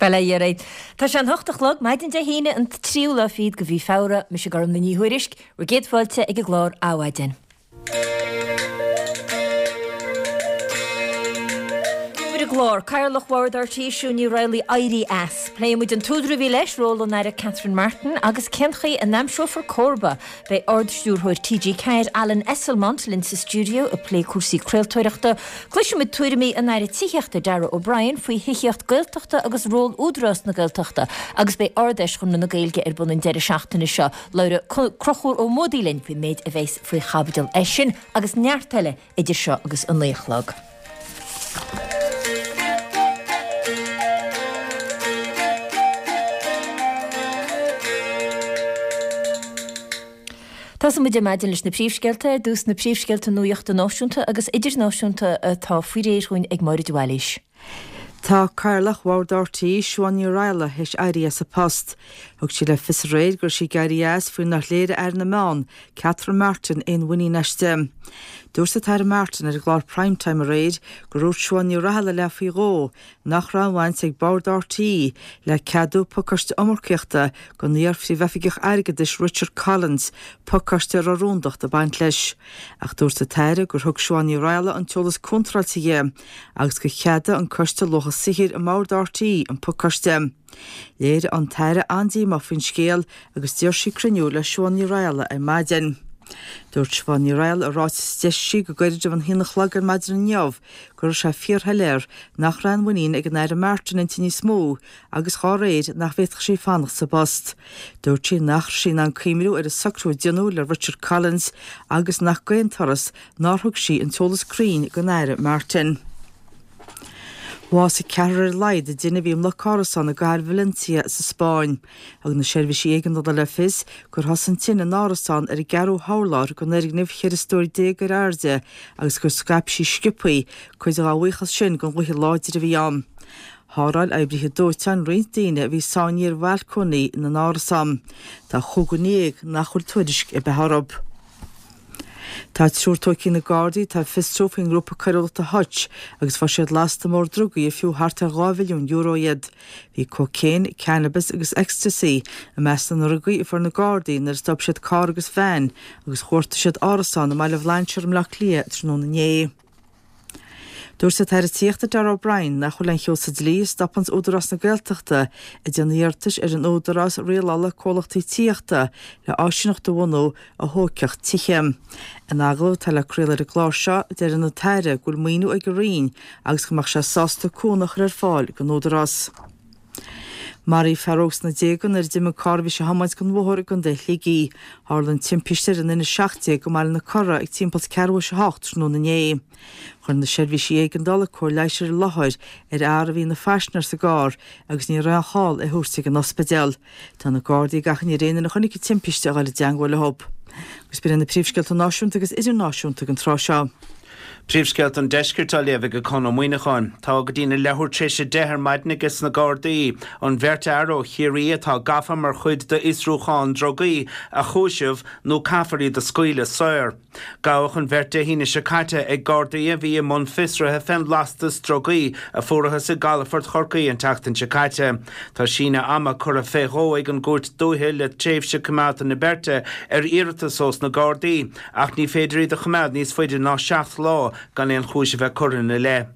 Bail ó Dhia oraibh. Tá sé an hocht a chlog, maidin Dé hAoine an tríú lá fichead de mhí Feabhra, mise Gormlaith Ní Thuairisg, bhur gcéad fáilte ag an gclár Adhmhaidin. Ar an gclár, Cathaoirleach Bhord RTÉ Siún Ní Raghallaigh éirí as. Pléifidh muid an t-údar a bhí leis, ról an Aire Catherine Martin agus cén chaoi a n-aimseofar comharba. Beidh Ard-Stiúrthóir TG4 Alan Esslemont linn sa stiúideo ag plé cúrsaí craoltóireachta. Cloisfidh muid tuairimí an Aire Tithíochta Darragh O'Brien faoi thithíocht Gaeltachta agus ról Údarás na Gaeltachta agus beidh Ard-Fheis Chonradh na Gaeilge ar bun an deireadh seachtaine seo. Labhróidh Conchúr Ó Muadaigh linn faoin méid a bheas faoi chaibidil air sin agus neart eile idir seo agus a 9 a chlog. Tosóidh muid ar maidin leis na príomhscéalta, ar dtús na príomhscéalta nuachta náisiúnta agus idirnáisiúnta atá faoi réir dhúinn ag Máire de Bhailís. Tá Cathaoirleach Bhord RTÉ, Siobhán Ní Raghallaigh, théis éirí as a post. Thug sí le fios aréir go raibh sí ag éirí as faoi nár léirigh Aire na Meán, Catherine Martin, aon mhuinín aisti. Dúirt an tAire Martin ar an gclár Prime Time aréir gur dhúirt Siobhán Ní Raghallaigh léi faoi dhó nach raibh aon bhaint ag Bord RTÉ le ceadú pacáiste iomarcaíochta don iar-phríomhoifigeach airgeadais Richard Collins, pacáiste a raibh rúndacht ag baint leis. Ach dúirt an tAire gur thug Siobhán Ní Raghallaigh an t-eolas contráilte di. agus gur cheadaigh an Coiste Luacha Saothair i mBord RTÉ an pacáiste. Léirigh an tAire an-díomá faoin scéal agus d'iarr sí cruinniú le Siobhán Ní Raghallaigh ar maidin. Dúirt Siobhán Ní Raghallaigh i ráiteas a d'eisigh sí go gairid roimh an haon a chlog ar maidin inniu go raibh sé fíorshoiléir nach raibh aon mhuinín ag an Aire Martin inti níos mó agus dhá réir nach bhféadfadh sí fanacht sa bpost. Dúirt sí nach raibh sí in ann cuimhniú ar an socrú a déanadh le Richard Collins agus nach d'aon turas nár thug sí an t-eolas cruinn don Aire Martin. Bhásaigh ceathrar ar a laghad i dtine a bhí i mbloc árasán i gcathair Valencia sa Spáinn. Thug na seirbhísí éigeandála le fios gur thosaigh an tine in árasán ar an gceathrú hurlár den fhoirgneamh 14 stór ar airde agus gur scaip sí sciobthaí, cuid dá bhuíochas sin don ghaoth láidir a bhí ann. Sháráil oibrithe dóiteáin roinnt daoine a bhí sáinnithe ar bhalcóiní na n-árasán. Tá chúigear déag nach bhfuil tuairisc ar bith orthu. Tá triúr tógtha ag na Gardaí atá ag fiosrú faoin ngrúpa coiriúlachta Hutch agus fuair siad lasta mór drugaí ar fiú thart ar €2 mhilliún iad. Bhí cócaon, cannabis agus ecstasy i measc na ndrugaí a fuair na Gardaí nuair a stop siad carr agus veain agus chuartaigh siad árasán i mBaile Bhlainséir i mBleá Cliath tráthnóna inné. Dúirt an tAire Tithíochta Darragh O'Brien nach bhfuil aon cheo sa dlí a stopanns Údarás na Gaeltachta ag déanamh iarratais ar an Údarás Rialála Comhlachtaí Tithíochta le áisíneacht a bhunú a thógfadh tithe. In agallamh atá le craoladh ar an gclár seo, deir an tAire go bhfuil maoiniú ag a Roinn agus go mbeadh sé sásta cúnamh a chur ar fáil don Údarás. Maraíodh fear óg sna déaga nuair a d'imigh carr a bhí sé a thiomáint den bhóthar i gContae Shligigh. Tharla an timpiste ar an N17 i mBaile na Cora ag timpeall ceathrú théis a hocht tráthnóna inné. Chuir na seirbhísí éigeandála cóir leighis ar an láthair ar fhear a bhí ina phaisinéir sa gcarr agus ní raibh aon chall é a thabhairt ag an ospidéal. Tá na Gardaí ag achainí ar aon duine a chonaic an timpiste a dhul i dteangmháil leo. Agus b'in iad na príomhscéalta náisiúnta agus idirnáisiúnta don tráth seo. Príomhscéalta an Deiscirt á léamh ag Conn Ó Muíneacháin. Tá go dtína leathuair tar éis a 10 ar maidin ages na Gardaí an bheirt fhear ó Chiarraí atá gafa mar chuid d'fhiosrúchán drugaí a chúiseamh nó caithfear iad a scaoileadh saor. Gabhadh an bheirt Dé hAoine seo caite ag Gardaí a bhí i mbun fiosraithe fén lastas drugaí a fuarathas i gcalafort Chorcaí an tseachtain seo caite. Tá síneadh ama curtha fé dhó ag an gCúirt Dúiche le tréimhse coimeádta na beirte ar iarratas ós na Gardaí. Ach ní féidir iad a choimeád níos faide ná 7 lá gan aon chúis a bheith curtha ina leith.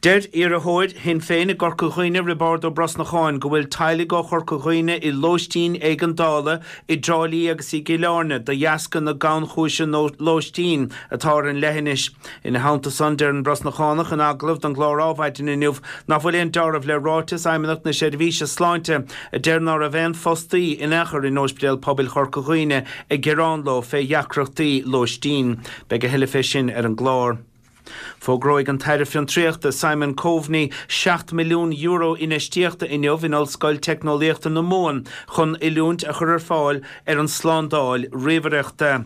Deir iarrthóir Shinn Féin i gCorca Dhuibhne, Roibeárd Ó Brosnacháin, go bhfuil teaghlaigh ó Chorca Dhuibhne i lóistín éigeandála i dTrá Lí agus i gCill Airne de dheasca na gannchúise lóistín atá ar an leithinis. Ina theannta san, deir an Brosnachánach in agallamh don gclár Ádhmhaidin inniu nach bhfuil aon deáramh le ráiteas Fheidhmeannacht na Seirbhíse Sláinte a deir ná raibh aon fostaí in aon chor in Ospidéal Pobail Chorca Dhuibhne ag gearán leo fé dheacrachtaí lóistín. Beidh a thuilleadh fé sin ar an gclár. Fógróidh an tAire Fiontraíochta Simon Coveney €7 milliún infheistíochta inniu in Ollscoil Teicneolaíochta na Mumhan chun oiliúint a chur ar fáil ar an tslándáil ríomhaireachta.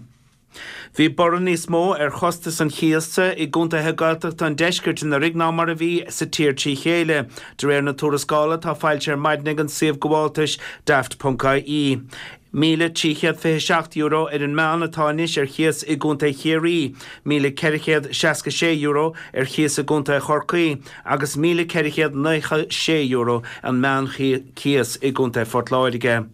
Bhí borradh níos mó ar chostas an chíosa i gcontaetha Gaeltachta an deiscirt anuraidh ná mar a bhí sa tír trí chéile, de réir na tuarascála atá foilsithe ar maidin ag an suíomh gabháltais Daft.ie. €1,327 ar an meán atá anois ar chíos i gContae Chiarraí, €1,466 ar chíos i gContae Chorcaí agus €1,496 an meánchíos i gContae Phort Láirge.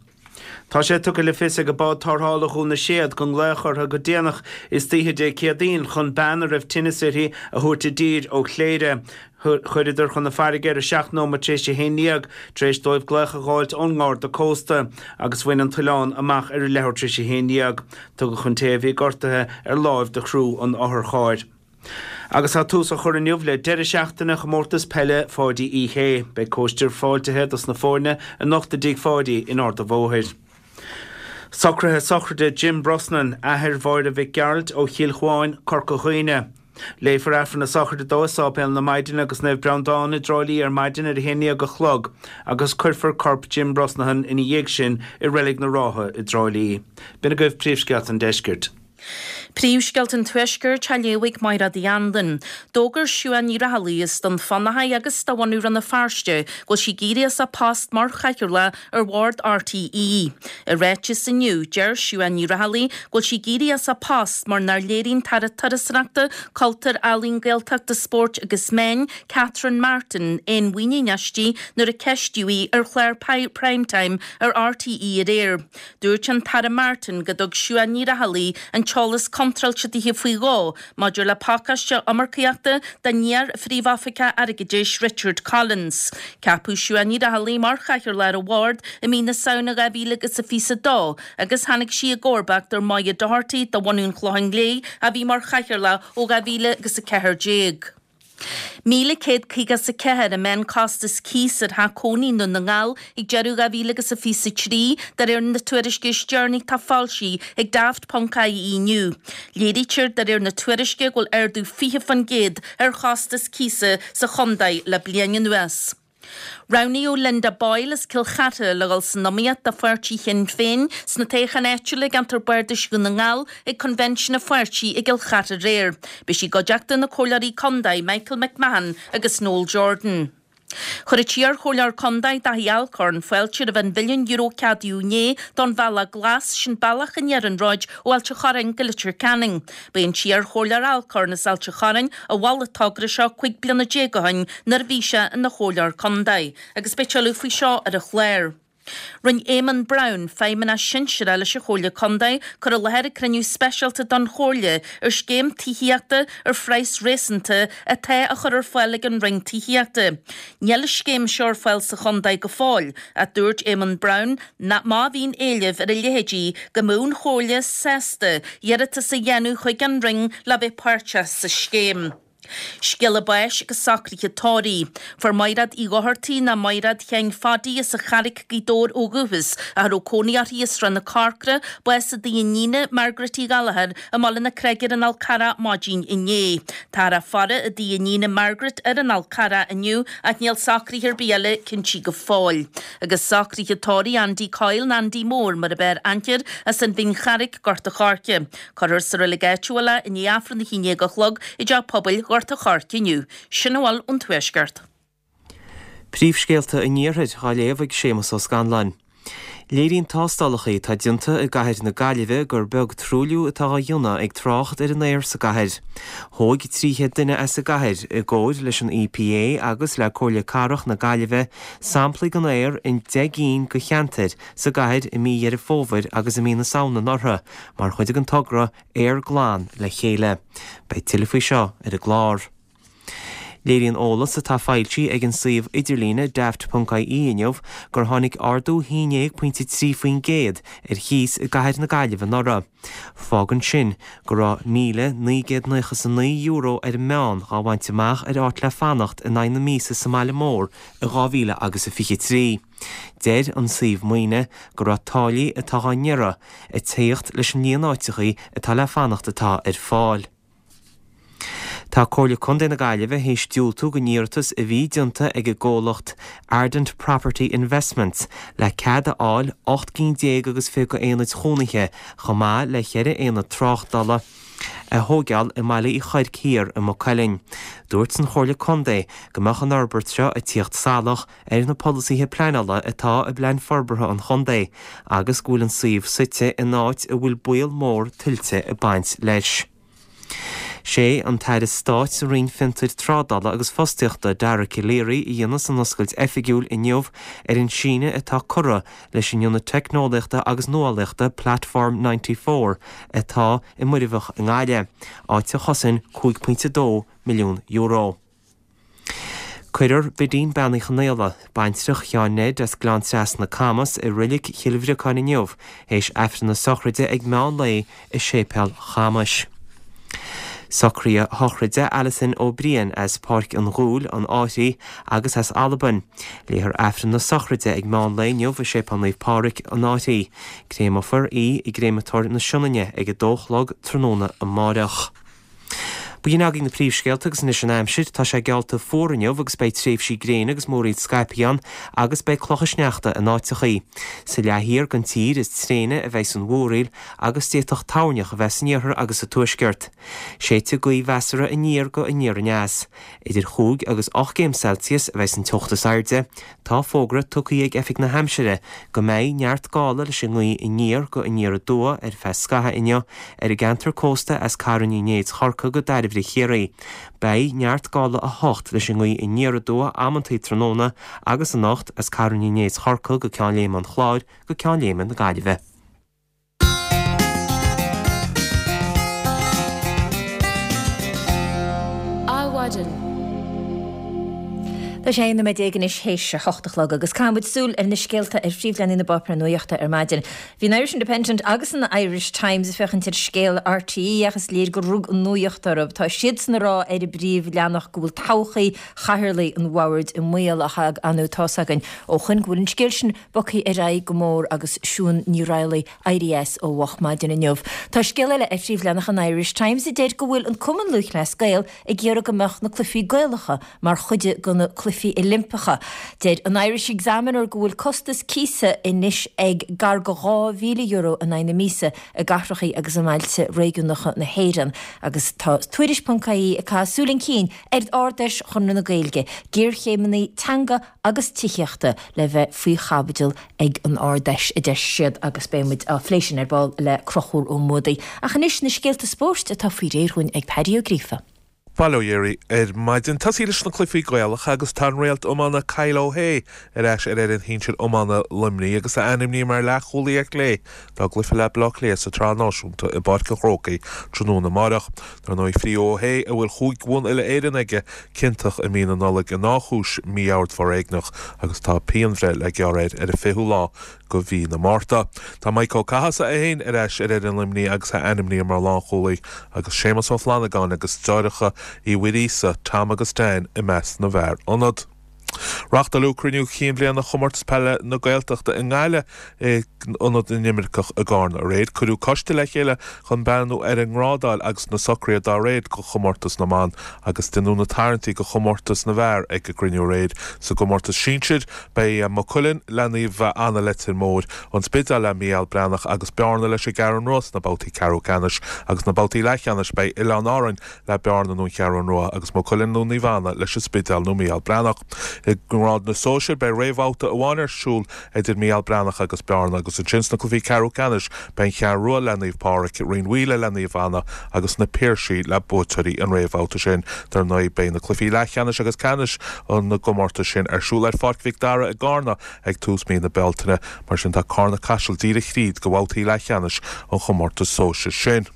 Tá sé tugtha le fios ag Bád Tarrthála Dhún na Séad go nglaodh orthu go déanach istoíche Dé Céadaoin chun bean a raibh tinneas uirthi a thabhairt i dtír ó Chléire. Chuireadar chun na farraige ar a 7 nóiméad tar éis a haon dhéag tar éis dóibh glaoch a dh'fháilt ón nGarda Cósta agus bhain an t-oileán amach ar a leathuair tar éis a haon dhéag. Tugadh an té a bhí gortaithe ar láimh do chriú an otharchairr. Agus tá tús á chur inniu le deireadh seachtaine Chomórtas Peile Pháidí Uí Shé. Beidh cóistir fáiltithe dos na foirne anocht i dTigh Pháidí in Ard a' Bhóthair. Socruithe sochraide Jim Brosnan, athair Mháire Mhic Gearailt ó Chill Chuáin, Corca Dhuibhne. Léifear Aifreann na sochraide dó i Sáipéal na Maighdine agus Naomh Breandán i dTrá Lí ar maidin ar a haon dhéag a chlog agus cuirfear corp Jim Brosnahan ina dhiaidh sin i Reilig na Rátha i dTrá Lí. B'in agaibh príomhscéalta an deiscirt. Príomhscéalta an Tuaiscirt á léamh ag Mairéad Uí Anluain. D'fhógair Siuán Ní Raghallaigh as Dún Fionnachaidh agus de bhunadh Rann na Feirste go bhfuil sí ag éirí as a post mar chathaoirleach ar bhord RTÉ. I ráiteas inniu, deir Siuán Ní Raghallaigh go bhfuil sí ag éirí as a post mar nár léirigh an tAire Turasóireachta, Cultúir, Ealaíon, Gaeltachta, Spóirt agus Meán, Catherine Martin, aon mhuinín aisti nuair a ceistíodh í ar chlár Prime Time ar RTÉ aréir. Dúirt an tAire Martin go dtug Siuán Ní Raghallaigh an t-eolas contráilte dithe faoi dhó maidir le pacáiste iomarcaíochta don iar-Phríomh-Oifigeach Airgeadais Richard Collins. Ceapadh Siuán Ní Raghallaigh mar Chathaoirleach ar an bhord i mí na Samhna 2022 agus tháinig sí i gcomharbacht ar Moya Doherty de bhunadh an Chlocháin Léith a bhí mar Chathaoirleach ó 2014. 1,154 an meánchostas cíos ar theach cónaí i nDún na nGall ag deireadh 2023, de réir na tuairisce is deireanaí atá foilsithe ag Daft Ponc IE inniu. Léirítear de réir na tuairisce go bhfuil ardú 20% ar chostas cíosa sa chontae le bliain anuas. Roghnaíodh Linda Boyle as Cill Chartha le dhul san iomaíocht do pháirtí Shinn Féin sna toghcháin áitiúla i gceantar Bardais Dhún na nGall ag Convention an pháirtí i gCill Chartha aréir. Beidh sí i gcuideachta na Comhairleoirí Contae Michael McMahon agus Noel Jordan. Chuir an t-iar-chomhairleoir contae Daithí Alcorn fáilte roimh an mhilliún euro a ceadaíodh inné don Bhealach Glas, sin bealach an iarnróid ó Ailt an Chorráin go Leitir Ceanainn. Ba é an t-iar-chomhairleoir Alcorn as Ailt an Chorráin a mhol an togra seo 15 bliana ó shin nuair a bhí sé ina chomhairleoir contae agus beidh tuilleadh faoi seo ar an chlár. Rinne Éamonn Brown, Feidhmeannach Sinsearach leis an Chomhairle Contae, cur i láthair ag cruinniú speisialta don Chomhairle ar scéim tithíochta ar phraghas réasúnta atá á chur ar fáil ag an Roinn Tithíochta. Níl an scéim seo ar fáil sa chontae go fóill ach dúirt Éamonn Brown nach má bhíonn éileamh ar a leithéidí go mbeadh an Chomhairle sásta iarratas a dhéanamh chuig an Roinn le bheith páirteach sa scéim. Scéala báis agus socruithe tórraimh. Fuair Maighreád Uí Dhochartaigh ná Maighreád Sheáin Phadaí as an Charraic, Gaoth Dobhair ó dhúchas, ach a raibh cónaí uirthi i Srath na Corcra, bás i dtigh a iníne, Margaret Uí Ghallchóir, i mBaile na Creige ar an Fhál Carrach maidin inné. Táthar á faire i dtigh a iníne Margaret ar an Fhál Carrach inniu ach níl socruithe ar bith eile cinntí go fóill. Agus socruithe tórraimh Andy Coyle ná Andy Mór mar ab fhearr aithne air as an Bhinn Charraic, Gort a' Choirce. Cuirfear sa reilig áitiúil é i ndiaidh Aifreann a 11 a chlog i dTeach Pobail Ghort a' Choirce inniu. Sin a bhfuil ón Tuaisceart. Príomhscéalta an Iarthair á léamh ag Séamus Ó Scanláin. Léiríonn tástálacha atá déanta i gcathair na Gaillimhe gur beag truailliú atá á dhéanamh ag trácht ar an aer sa gcathair. Thóg 300 duine as an gcathair, i gcomhair leis an EPA agus le Comhairle Cathrach na Gaillimhe, samplaí den aer in 10 gcinn de cheantair sa gcathair i mí Dheireadh Fómhair agus i mí na Samhna anuraidh mar chuid den togra 'Aer Glan le Chéile'. Beidh tuilleadh faoi seo ar an gclár. Léiríonn eolas atá foilsithe ag an suíomh idirlíne daft.ie inniu gur tháinig ardú 11.3% ar chíos i gcathair na Gaillimhe anuraidh. Fágann sin go raibh €1,999 ar an meán dhá bhaint amach ar áit le fanacht in aghaidh na míosa sa mbaile mór i 2023. Deir an suíomh maoine go raibh táillí atá á ngearradh ag tíocht leis an líon áiteachaí atá le fanacht atá ar fáil. Tá Comhairle Contae na Gaillimhe théis diúltú don iarratas a bhí déanta ag an gcomhlacht Ardent Property Investments le cead a fháil 18 gcinn agus 20 aonaid chónaithe chomh maith le cheithre aonad tráchtála. a thóigeáil i mBaile Uí Chuirc Thiar i Maigh Cuilinn. Dúirt an Chomhairle Contae go mbeadh an fhorbairt seo ag tíocht salach ar na polasaithe pleanála atá i bPlean Forbartha an Chontae agus go bhfuil an suíomh suite in áit a bhfuil baol mór tuilte ag baint leis. Sé an tAire Stáit sa Roinn Fiontair Trádála agus Fostaíochta, Dara Calleary, a dhéanfas an oscailt oifigiúil inniu ar an síneadh atá curtha leis an Ionad Teicneolaíochta agus Nuálaíochta Platform 94 atá i Muirbheach i nGaillimh, áit a chosain €5.2 milliún. Cuirfear Bidín Bean Uí Chonaola, baintreach Sheáin Ned as Gleann Trasna, Camas, i Reilig Chill Bhriocáin inniu théis Aifreann na sochraide ag meán lae i Séipéal Chamais. Socruithe sochraide Alison Ó Briain as Páirc an Ghuail, an Fhairche agus as Albain. Léifear Aifreann na sochraide ag meán lae inniu i Séipéal Naomh Pádraig, an Fhairche. Créamofar í i gCréamatóir na Sionainne ag a dó a chlog tráthnóna amáireach. B'in agaibh na príomhscéalta agus anois an aimsir. Tá sé geallta fuar inniu agus beidh tréimhsí gréine agus múraíl scaipthe ann agus beidh clocha sneachta in áiteachaí. Sa leath thiar den tír is tréine a bheidhs an mhúraíl agus d'fhéadfadh toirneach a bheith san iarthar agus sa tuaisceart. Séidfidh gaoth mheasartha aniar go aniar aneas. Idir chúig agus 8 gcéim Celsius a bheidhs an teocht is airde. Tá fógra tugtha ag Oifig na hAimsire go mbeidh neart gála leis an ngaoth aniar go aniar aduaidh ar feadh scaithimh inniu ar an gceantar cósta as Carn Uí Néid Chorcaí go Dairbhre Chiarraí. Beidh neart gála 8 leis an ngaoth aniar aduaidh amantaí tráthnóna agus anocht as Carn Uí Néid Chorcaí go Ceann Léime an Chláir go Ceann Léime na Gaillimhe. Adhmhaidin. Tá sé 11 nóiméad anois théis a hocht a chlog agus caithfidh muid súil ar na scéalta ar phríomhleathanaigh na bpáipéar nuachta ar maidin. Bhí an Irish Independent agus an Irish Times ag féachaint ar scéal RTÉ ach is léir gur rug an nuacht orthu. Tá siadsan ag rá ar an bpríomhleathanach go bhfuil todhchaí chathaoirligh an bhoird i mbaol ach ar ndóigh tá's againn ó shoin go bhfuil an scéal sin bogtha ar aghaidh go mór agus Siún Ní Raghallaigh éirithe as ó mhoch maidin inniu. Tá scéal eile ar phríomhleathanach an Irish Times a deir go bhfuil an Cumann Lúthchleas Gael ag iarraidh go mbeadh na Cluichí Gaelacha mar chuid de na Cluichí Oilimpeacha. Deir an Irish Examiner go bhfuil costas cíosa anois ag gar go €2,000 in aghaidh na míosa i gcathracha agus i mbailte réigiúnacha na hÉireann agus tá Tuairisc ponc ie ag caitheamh súil chun cinn ar Ard-Fheis Chonradh na Gaeilge, géarchéimeanna teanga agus tithíochta le bheith faoi chaibidil ag an Ard-Fheis, a deir siad, agus beidh muid á phlé sin ar ball le Conchúr Ó Muadaigh. Ach anois, na scéalta spóirt atá faoi réir dhúinn ag Paddy Ó Gríofa. Bail ó Dhia oraibh ar maidin. Tosaí leis na cluichí Gaelacha agus tá an réalt iomána Kyle O'Hea ar ais ar fhoireann shinsir iomána Luimnigh agus é ainmnithe mar leathchúlaí ar chlé dá gcluiche le Baile Átha Cliath sa tSraith Náisiúnta i bPáirc an Chrócaigh tráthnóna amáireach. Dar ndóigh, bhí O'Hea, a bhfuil chúig bhonn uile-Éireann aige, ciontach i mí na Nollag i ndá chúis mí-ord foréigneach agus tá pianbhreith le gearradh air ar an 20ú lá de mhí na Márta. Tá Mike Ó Cathasaigh é féin ar ais ar fhoireann Luimnigh agus é ainmnithe mar lánchúlaí agus Séamus Ó Flannagáin agus deartháireacha Uí Mhuiríosa, Tom agus Dan, i measc na bhfear ionad. Reáchtáladh cruinniú cinn bhliana Chomórtas Peile na Gaeltachta i nGaillimh i Ionad na nImirceach i gCarna aréir. Cuireadh coiste le chéile chun breathnú ar an ngrádáil agus na socruithe dá réir do chomórtas na mban agus deineadh na tarraingtí do chomórtas na bhfear ag an gcruinniú aréir. Sa gcomórtas sinsir, beidh Maigh Cuilinn le Naomh Anna Leitir Móir, An Spidéal le Mícheál Breathnach agus Bearna leis an gCeathrú Rua sna babhtaí ceathrú ceannais agus sna babhtaí leathcheannais beidh Oileáin Árainn le Bearna nó an Cheathrú Rua agus Maigh Cuilinn nó Naomh Anna leis an Spidéal nó Mícheál Breathnach. I ngrád na sóisear beidh réamhbhabhta amháin ar siúl idir Mícheál Breathnach agus Bearna agus ansin sna cluichí ceathrú ceannais beidh an Cheathrú Rua le Naomh Pádraig, Rinn Mhaoile le Naomh Anna agus na Piarsaigh le buaiteoirí an réamhbhabhta sin. Dar ndóigh beidh na cluichí leathcheannais agus ceannais na gcomórtas sin ar siúl ar Pháirc Mhic Dara i gCarna ag tús mí na Bealtaine. Mar sin tá Carna Caiseal díreach thríd go bhabhtaí leathcheannais an chomórtais sóisir sin.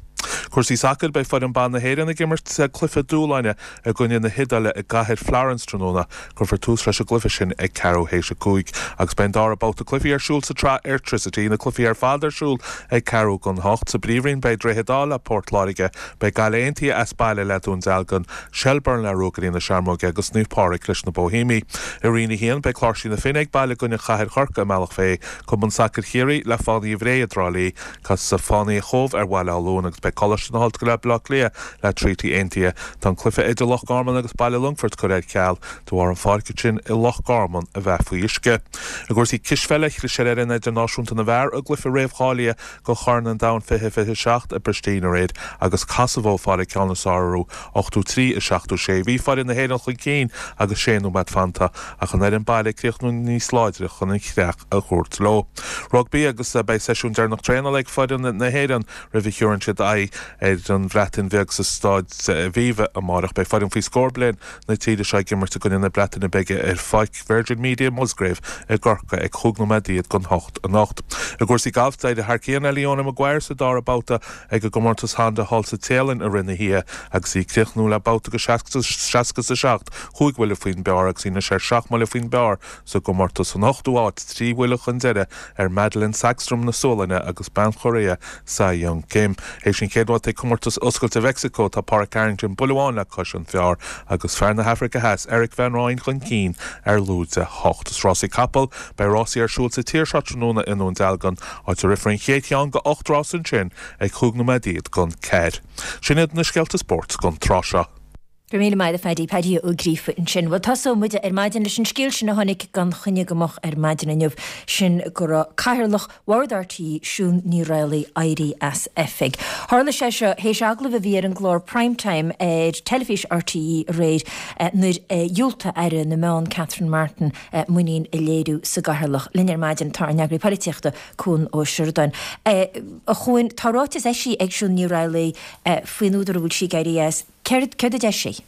Cúrsaí sacair, Beidh foireann ban na hÉireann ag imirt cluiche dúshláin i gcoinne na hIodáile i gcathair Florence tráthnóna. Cuirfear tús leis an gcluiche sin ag ceathrú théis a 5 agus beidh an dara babhta cluichí ar siúl sa tsraith Airtricity, na cluichí ar fad ar siúl ag ceathrú don hocht. Sa bPríomhroinn beidh Droichead Átha le Port Láirge, beidh Gaillimh Aontaithe as baile le Dún Dealgan, Shelbourne le Ruagairí na Searmóige agus Naomh Pádraig leis na Boihéamaigh. I Roinn 1 beidh Cláirsigh na Finne ag baile i gcoinne Chathair Chorcaí i mBealach Féich, Cumann Sacair Chiarraí le Fánaithe Bhré i dTrá Lí. Casfaidh Fánaithe Chóbh ar Bhaile Átha Luain agus beidh. Coláiste na hOllscoile Baile Átha Cliath le Treaty Aontaithe. Tá an cluiche idir Loch Garman agus Baile Longfoirt curtha ar ceal de bharr an pháirc ansin i Loch Garman a bheith faoi uisce. I gcúrsaí cispheile, chlis ar fhoireann idirnáisiúnta na bhfear i gcluiche réamhcháilithe do Chorn an Domhain 2027 i bPristina aréir agus Kosovo ag fáil an ceann is fearr orthu, 83, 76. Bhí foireann na hÉireann chun cinn agus sé nóiméad fanta ach an fhoireann baile ag críochnú níos láidre chun an chreach a thabhairt leo. Rugbaí agus beidh seisiún deireanach traenála ag foireann na hÉireann roimh a thabharfaidh siad aghaidh ar an Bhreatain Bheag sa Staid Aviva amárach. Beidh foireann faoi scór bliain na tíre seo ag imirt i gcoinne na Breataine Bige ar Pháirc Virgin Media Musgrave i gCorcaigh ag chúig nóiméad don hocht anocht. I gcúrsaí gailf, d'éirigh thar cionn le Leona Maguire sa dara babhta ag an gcomórtas Honda thall sa Téalainn i rith na hoíche agus í ag críochnú le babhta de 67, chúig bhuille faoin bpar agus í anois ar sheacht mbuille faoin bpar sa gcomórtas. San ochtú háit, trí bhuille chun deiridh ar Madelene Sagstrom na Sualainne agus bean Chóiréa Sei Young Kim. Théis an chéad bhabhta ag Comórtas Oscailte Mheicsiceo, tá Pádraig Harrington buille amháin le cois an phar agus fear na hAfraice Theas, Erik van Rooyen chun cinn ar lúide 8. Is rásaí capall, beidh rásaí ar siúl sa tír seo tráthnóna i nDún Dealgan, áit a rithfear an chéad cheann de 8 rás ansin ag chúig nóiméad don ceathair. Sin iad na scéalta spóirt don tráth seo. Go raibh míle maith agat a Phaddy, Paddy Ó Gríofa ansin. Bhuel, tosóidh muid ar maidin leis an scéal sin a tháinig gan choinne go moch ar maidin inniu, sin go raibh Cathaoirleach Bhord RTÉ, Siún Ní Raghallaigh, éirithe as oifig. Tharla sé seo théis agallamh a bhí ar an gclár Prime Time ar teilifís RTÉ aréir nuair a dhiúltaigh Aire na Meán Catherine Martin muinín a léiriú sa gCathaoirleach. Linn ar maidin tá ár n-eagraí polaitíochta, Cuan Ó Seireadáin. A Chuain, tá ráiteas eisithe ag Siún Ní Raghallaigh faoin údar a bhfuil sí ag éirí as. Céard a deir sí?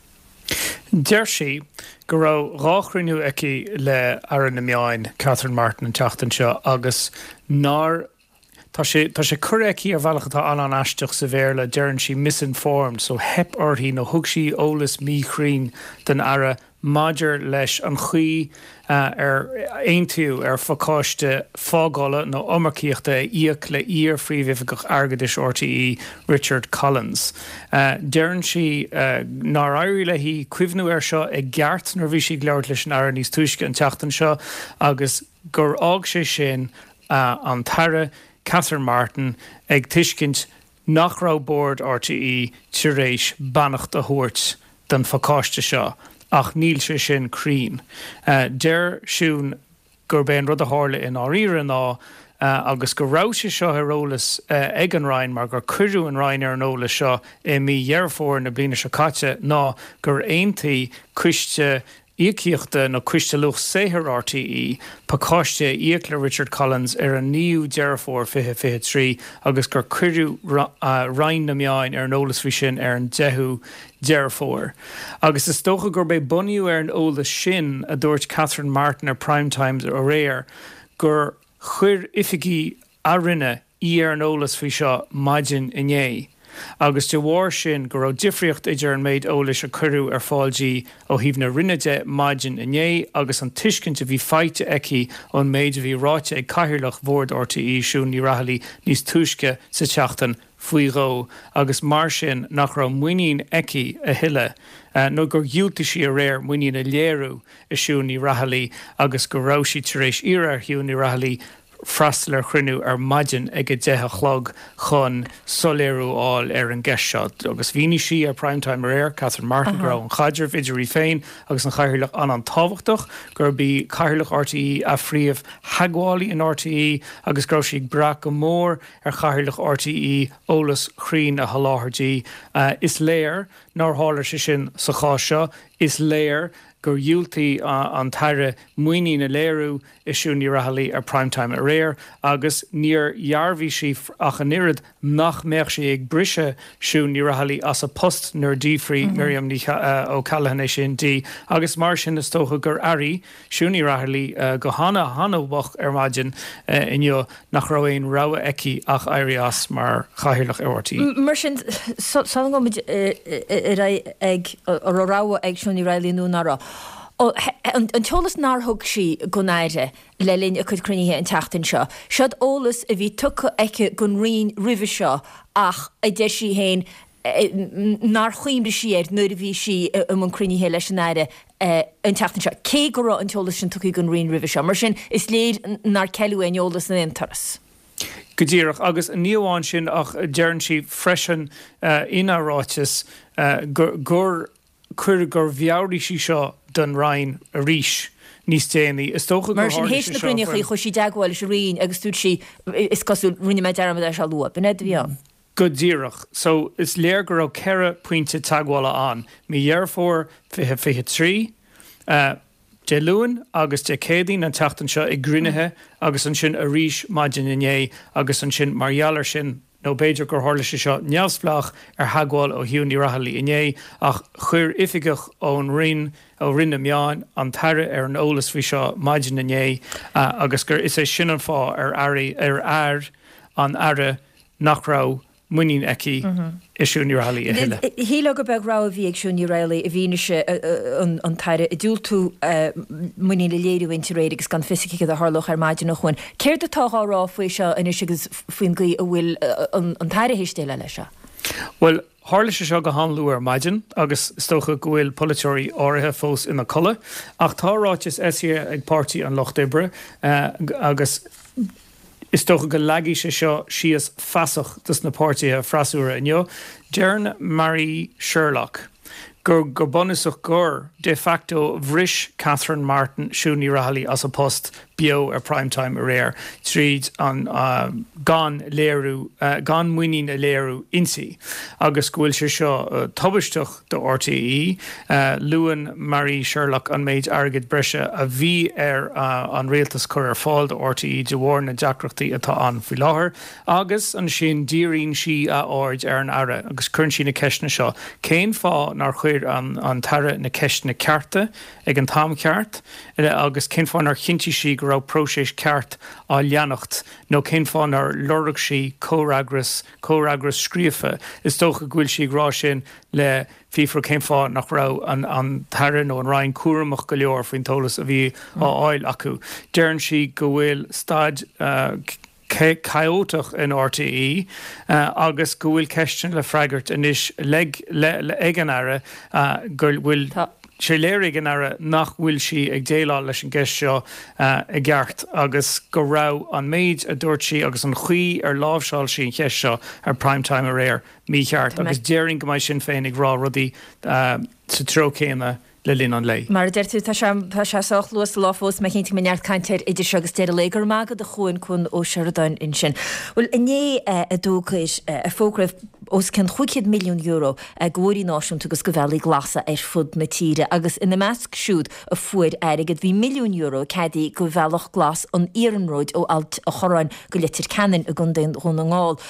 Deir sí go raibh 2 chruinniú aici le Aire na Meáin, Catherine Martin an tseachtain seo agus nár, tá sé, tá sé curtha aici ar bhealach atá an-an-aisteach sa Bhéarla, deireann sí misinformed, so theip uirthi nó thug sí eolas míchruinn don Aire maidir leis an chaoi ar aontaíodh ar phacáiste fágála nó iomarcaíochta a íoc le iar-Phríomhoifigeach Airgeadais RTÉ, Richard Collins. Deireann sí nár éirigh léi cuimhniú air seo i gceart nuair a bhí sí ag labhairt leis an Aire níos túisce an tseachtain seo agus gur fhág sé sin an tAire Catherine Martin ag tuiscint nach raibh Bord RTÉ tar éis beannacht a thabhairt don phacáiste seo ach níl sé sin cruinn. Deir Siún gurb é an rud a tharla i ndáiríre ná, agus go raibh sé seo ar eolas ag an Roinn mar gur cuireadh an Roinn ar an eolas seo i mí Dheireadh Fómhair na bliana seo caite, ná gur aontaigh coiste Íocaíochta nó Coiste Luach Saothair RTÉ pacáiste a íoc le Richard Collins ar an 9ú Deireadh Fómhair 2023 agus gur cuireadh Roinn na Meáin ar an eolas faoi sin ar an 10ú Deireadh Fómhair. Agus is dócha gurb é bunaithe ar an eolas sin a dúirt Catherine Martin ar Prime Time aréir gur chuir oifigigh a Roinne í ar an eolas faoi seo maidin inné agus de bharr sin go raibh difríocht idir an méid eolais a cuireadh ar fáil di ó thaobh na Roinne de maidin inné agus an tuiscint a bhí faighte aici ón méid a bhí ráite ag Cathaoirleach Bhord RTÉ, Siún Ní Raghallaigh níos túisce sa tseachtain faoi dhó agus mar sin nach raibh muinín aici a thuilleadh nó gur dhiúltaigh sí aréir muinín a léiriú i Siún Ní Raghallaigh agus go raibh sí tar éis iarraidh ar Shiún Ní Raghallaigh freastal ar chruinniú ar maidin ag 10 a chlog chun soiléiriú a fháil ar an gceist seo. Agus mhínigh sí ar Prime Time aréir, Catherine Martin, go raibh an chaidreamh idir í féin agus an Chathaoirleach an-an-tábhachtach, gurb í Cathaoirleach RTÉ a phríomh-theagmhálaí in RTÉ agus go raibh sí ag brath go mór ar Chathaoirleach RTÉ eolas cruinn a sholáthar di. Is léir nár tharla sé sin sa chás seo. Is léir gur dhiúltaigh an tAire muinín a léiriú i Siún Ní Raghallaigh ar Prime Time aréir agus níor dhearbhaigh sí ach an oiread nach mbeadh sí ag briseadh Siún Ní Raghallaigh as a post nuair a d'fhiafraigh Miriam Ní O'Callaghan é sin di agus mar sin is dócha gur airigh Siún Ní Raghallaigh go hana hana-mhoch ar maidin inniu nach raibh aon rogha aici ach éirí as mar chathaoirleach ar RTÉ. Mar sin, sula ngabhaimid ar aghaidh ag an raibh rogha ag Siún Ní Raghallaigh nó nach raibh, an t-eolas nár thug sí don Aire le linn a cuid cruinnithe an tseachtain seo, seod eolas a bhí tugtha aici don Roinn roimhe seo ach a deir sí féin nár chuimhnigh sí air nuair a bhí sí i mbun cruinnithe leis an Aire an tseachtain seo, cé go raibh an t-eolas sin tugtha don Roinn roimhe seo. Mar sin, is léir nár ceileadh aon eolas in aon turas. Go díreach. Agus ní amháin sin ach deireann sí freisin ina ráiteas gur chuir, gur mheabhraigh sí seo don Roinn arís níos déanaí. Is dócha gur Mar sin, tharla théis sé na seo gcruinnithe faoin. chuaigh sí i dteagmháil leis an Roinn agus dúirt sí, is cosúil, rinne mé dearmad é seo a lua. B'in é a bhí ann. Go díreach. So, is léir go raibh 4 pointe teagmhála ann, mí Dheireadh Fómhair 2023, Dé Luain agus Dé Céadaoin an tseachtain seo i gcruinnithe agus ansin arís maidin inné agus ansin mar gheall air sin, nó b'fhéidir gur tharla sé seo neamhspleách ar theagmháil ó Shiún Ní Raghallaigh inné, ach chuir oifigeach ón Roinn, ó Roinn na Meán, an tAire ar an eolas faoi seo maidin inné agus gur is é sin an fáth ar airigh, ar air an Aire nach raibh muinín aici i Siún Ní Raghallaigh a thuilleadh. Shílfeá gur beag rogha a bhí ag Siún Ní Raghallaigh i bhfianaise an tAire ag diúltú muinín a léiriú inti aréir agus gan fios aici céard a tharlódh ar maidin a Chuain. Céard atá á rá faoi seo anois agus faoin gcaoi a bhfuil an tAire théis déileáil leis seo? Bhuel, tharla sé seo go han-luath ar maidin agus is dócha go bhfuil polaiteoirí áirithe fós ina codladh ach tá ráiteas eisithe ag Páirtí an Lucht Oibre agus, Is dócha go leagfaidh sé seo síos fasach dos na páirtithe freasúra inniu. Deireann Marie Sherlock gur go bunúsach gur de facto bhris Catherine Martin Siún Ní Raghallaigh as a post beo ar Prime Time aréir tríd an gan léiriú gan muinín a léiriú inti agus go bhfuil sé seo tubaisteach do RTÉ. Luann Marie Sherlock an méid airgid breise a bhí ar an rialtas cur ar fáil do RTÉ de bharr na deacrachtaí atá ann faoi láthair agus ansin díríonn sí a aird ar an Aire agus cuireann sí na ceisteanna seo, cén fáth nár chuir an tAire na ceisteanna cearta ag an t-am ceart agus cén fáth nár chinntigh sí go raibh próiseas ceart á leanacht nó cén fáth nár lorg sí comhfhreagras comhfhreagras scríofa. Is dócha go bhfuil sí ag rá sin le fiafraí cén fáth nach raibh an tAire nó an Roinn cúramach go leor faoin t-eolas a bhí á fháil acu. Deireann sí go bhfuil staid chaótach in RTÉ agus go bhfuil ceisteanna le freagairt anois ag an Aire go bhfuil sé léirithe ag an Aire nach bhfuil sí ag déileáil leis an gceist seo i gceart agus go raibh an méid a dúirt sí agus an chaoi ar láimhseáil sí an cheist seo ar Prime Time aréir mícheart agus déarfainn go mbeidh Sinn Féin ag rá rudaí sa treo céanna le linn an lae. Mar a deir tú, tá sé, tá sé sách luath sa lá fós, mé cinnte go mbeidh neart cainte air idir seo agus deireadh lae. Go raibh maith agat a Chuain, Cuan Ó Seireadáin ansin. Bhuel, inné a d'fhógair, a fógraíodh os cionn €500 milliún do bhóithrí náisiúnta agus do bhealaí glasa ar fud na tíre agus ina measc siúd a fuair airgead bhí €1 milliún ceadaithe do Bhealach Glas an Iarnróid ó Ailt a' Chorráin go Leitir Ceanainn i gContae Dhún na nGall,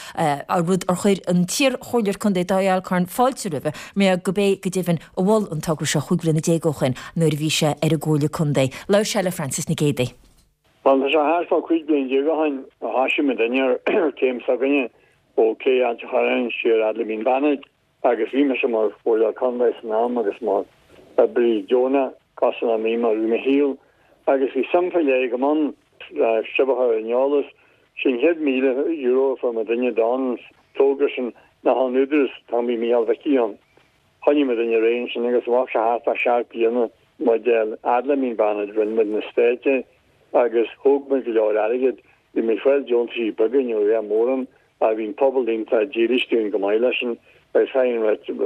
rud ar chuir an t-iar-chomhairleoir contae Dáithí Alcorn fáilte roimhe mar gurb é go deimhin a mhol an togra seo 15 bhliana ó shoin nuair a bhí sé ar an gComhairle Contae. Labhair sé le Frances Nic Géadaigh. Bhuel, tá sé thart fá 15 bliain ó shoin a thoisigh muidinne ar chéim s'againne ó Cé Ailt a' Chorráin siar fhad le Mín Bannaid agus bhí mise mar Chomhairleoir Contae san am agus mar oibrí deonach cosúil le mí mar bhí mo shaol agus bhí suim faoi leith agam ann le sibh a chur ar an eolas. Sé an chéad €1,000 a fuair muidinne don togra sin ná ón Údarás an t-am bhí Mícheál Mhicí ann. Choinnigh muidinne ar aghaidh ansin agus bheadh sé thart fá sheacht bliana muid a fhad le Mín Bannaid rinne muid na staic agus thóg muid go leor airgid Bhí muid ag fáil deontaisí beaga, ní raibh mórán, ach bhí an pobal iontach dílis dúinn go maith leis sin agus caithfidh an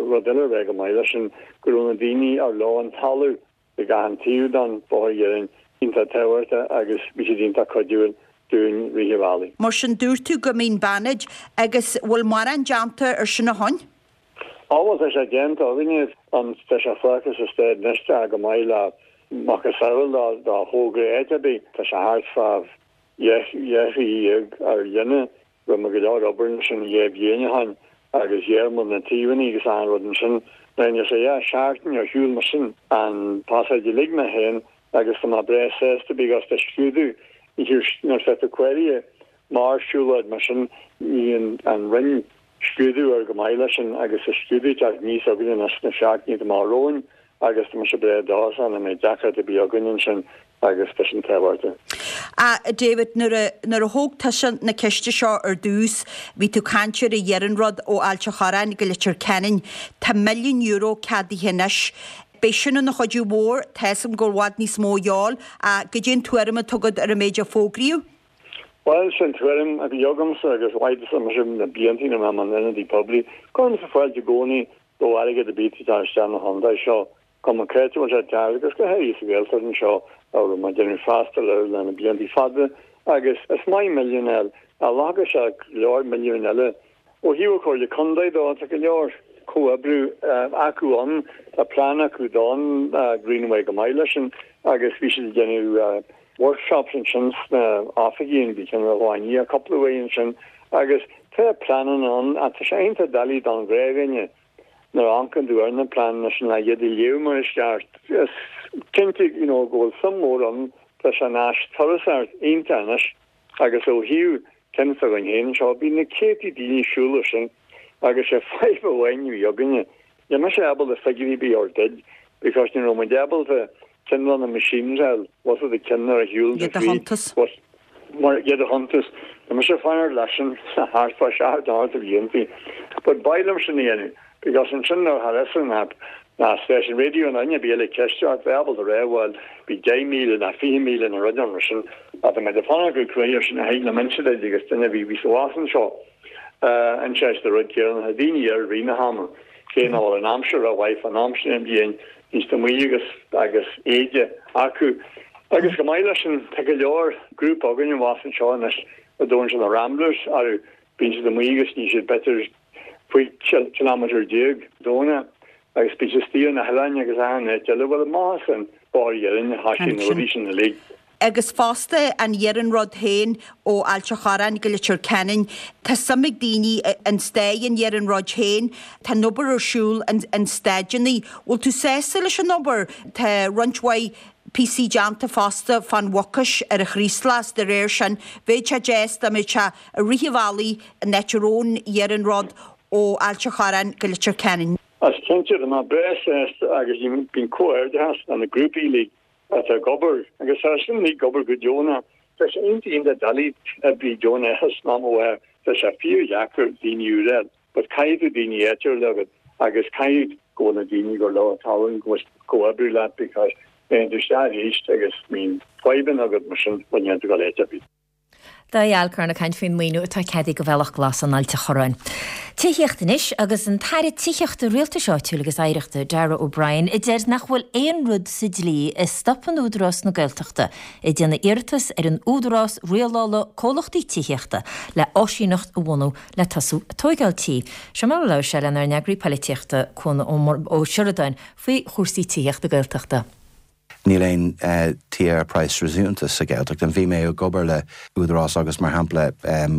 rud eile a rá go maith leis sin go raibh na daoine ar leo an talamh ag achan taobh den bhóthar iarainn iontach tábhachtach agus bhí siad iontach cuidiúil dúinn rith an bhealaigh. Mar sin dúirt tú go Mín Bannaid agus bhfuil mórán déanta ar sin ó shoin? Á bhuel tá sé déanta againne, an tá sé fágtha sa staid anois tá go maith le macasamhail dá thogra áit ar bith tá sé thart fá dheich mhí ar líne. Rinne muid go leor obair ansin dhá bhliain ó shoin agus ghearr muid na taobhanna agus achan rud ansin. Rinne sé dhá sheachtain ar shiúl mar sin an pasáid uilig mé féin agus tá mé breá sásta because tá scrúdú nuair atá tú cóirithe mar siúlóid mar sin ní an Roinn scrúdú air go maith leis sin agus tá scrúdú ag teacht aníos againne anois sna seachtainí atá amach romhainn agus tá mise breá dóchasach nach mbeidh deacracht ar bith againn ansin agus tá sin tábhachtach. A David, nuair a, nuair a thóg tusa na ceiste seo ar dtús, bhí tú ag caint ar an iarnród ó Ailt a' Chorráin go Leitir Ceanainn. Tá €1 milliún ceadaithe anois. Beidh sin ina chuidiú mhór, tá 'fhios a'm go bhfuil i bhfad níos mó a dhíobháil, ach goidé an tuairim atá agat ar an méid a fógraíodh? Bhuel, sin tuairim a bhí agamsa agus mhaith mise na blianta ina raibh mé mar ionadaí poiblí. Cuirimse fáilte i gcónaí do airgead ar bith ag teacht isteach na chontae seo, cuma cá háit a bhfuil sé ag teacht agus go háirithe sa Ghaeltacht anseo a raibh mé ag déanamh freastal air le na blianta fada agus is maith milliún a fháil ach ghlacfadh sé go leor milliúin eile. Ó thaobh an Chomhairle Contae dó, tá go leor comhoibriú acu ann, tá plean acu don Greenway go maith leis sin agus bhí siad ag déanamh workshops ansin sna oifigí an bhí ceann ar Dhuine cúpla uair ansin agus tá pleananna ann ach tá sé iontach doiligh don ghnáthdhuine nuair a amharcann tú ar na pleananna sin le iad a léamh mar is ceart. Is cinnte you know go bhfuil suim mhór ann, tá sé ina áis turasóireachta iontach anois agus ó thaobh ceann s'againn féin anseo bíonn na céadtaí daoine ag siúl air sin agus sé fadhb amháin a bhí againne Níl mise ábalta figiúirí ar bith a thabhairt duit because ní raibh muid ábalta cineál na machines a fháil, was it the ceann ar a shiúl Iad a chuntas. Was mar iad a chuntas. Tá mise ag fanacht leis sin thart fá seacht nó ocht de bhlianta. But b'fhearr liom sin a dhéanamh because ansin nuair a tharla an app ná stáisiún raidió nó duine ar bith eile ceist ort bheith ábalta rá bhuel bhí 10,000 ná 20,000 nó rud mar sin ach tá mé ag fanacht go cruaidh ar sin a thig liom inse duit agus duine a bhí bhí sa bhás anseo. An sé an rud céanna, tá daoine air i rith na hama, cé nach bhfuil an aimsir rómhaith fán am sin den bhliain, bíonn siad amuigh agus agus éide acu. Agus go maith leis sin, tá go leor grúpa againn abhus anseo anois a dtugann siad na Ramblers orthu, bíonn siad amuigh agus ní siad b'fhéidir 15 kilometre Domhnach agus bíonn siad istigh ar na hoileáin agus achan áit eile. Bhuel, maith as an Bóthar Iarainn, thoisigh na rudaí sin uilig. Agus fosta an iarnród féin ó Ailt a' Chorráin go Leitir Ceanainn, tá suim ag daoine in staid an iarnróid féin, tá an obair ar siúl an staideanna. Bhfuil tú sásta leis an obair? Tá roinnt mhaith píosaí déanta fosta fán Mhucais ar an Chraoslach, de réir sin bheadh sé deas dá mbeadh sé i rith an bhealaigh an áit a raibh an iarnród ó Ailt a' Chorráin go Leitir Ceanainn. Is cinnte, tá mé breá sásta agus bíonn comhghairdeachas le na grúpaí uilig atá ag obair agus tá sin uilig ag obair go deonach. Tá sé iontach iontach doiligh oibrí deonacha san am atá tá sé fíordheacair daoine úra a fháil but caithfidh tú daoine áitiúla agat agus caithfidh go bhfuil na daoine gur leo an talún go bhfuil comhoibriú leat because téann tú isteach arís agus bíonn fadhbanna agat mar sin bhuel níl tú ag dul áit ar bith. Dáithí Alcorn ag caint faoin maoiniú atá ceadaithe do Bhealach Glas in Ailt a' Chorráin. Tithíocht anois agus an tAire Tithíochta, Rialtais Áitiúil agus Oidhreachta, Darragh O'Brien, a deir nach bhfuil aon rud sa dlí a stopann Údarás na Gaeltachta ag déanamh iarratas ar an Údarás Rialála Comhlachtaí Tithíochta le áisíneacht a bhunú le tosú ag tóigeáil tí. Seo mar a labhair sé lenár n-eagraí poilitíochta, Cuan Ó Seireadáin, faoi chúrsaí tithíochta Gaeltachta. Níl aon tithe ar praghas réasúnta sa Ghaeltacht. Bhí mé ag obair le Údarás agus mar shampla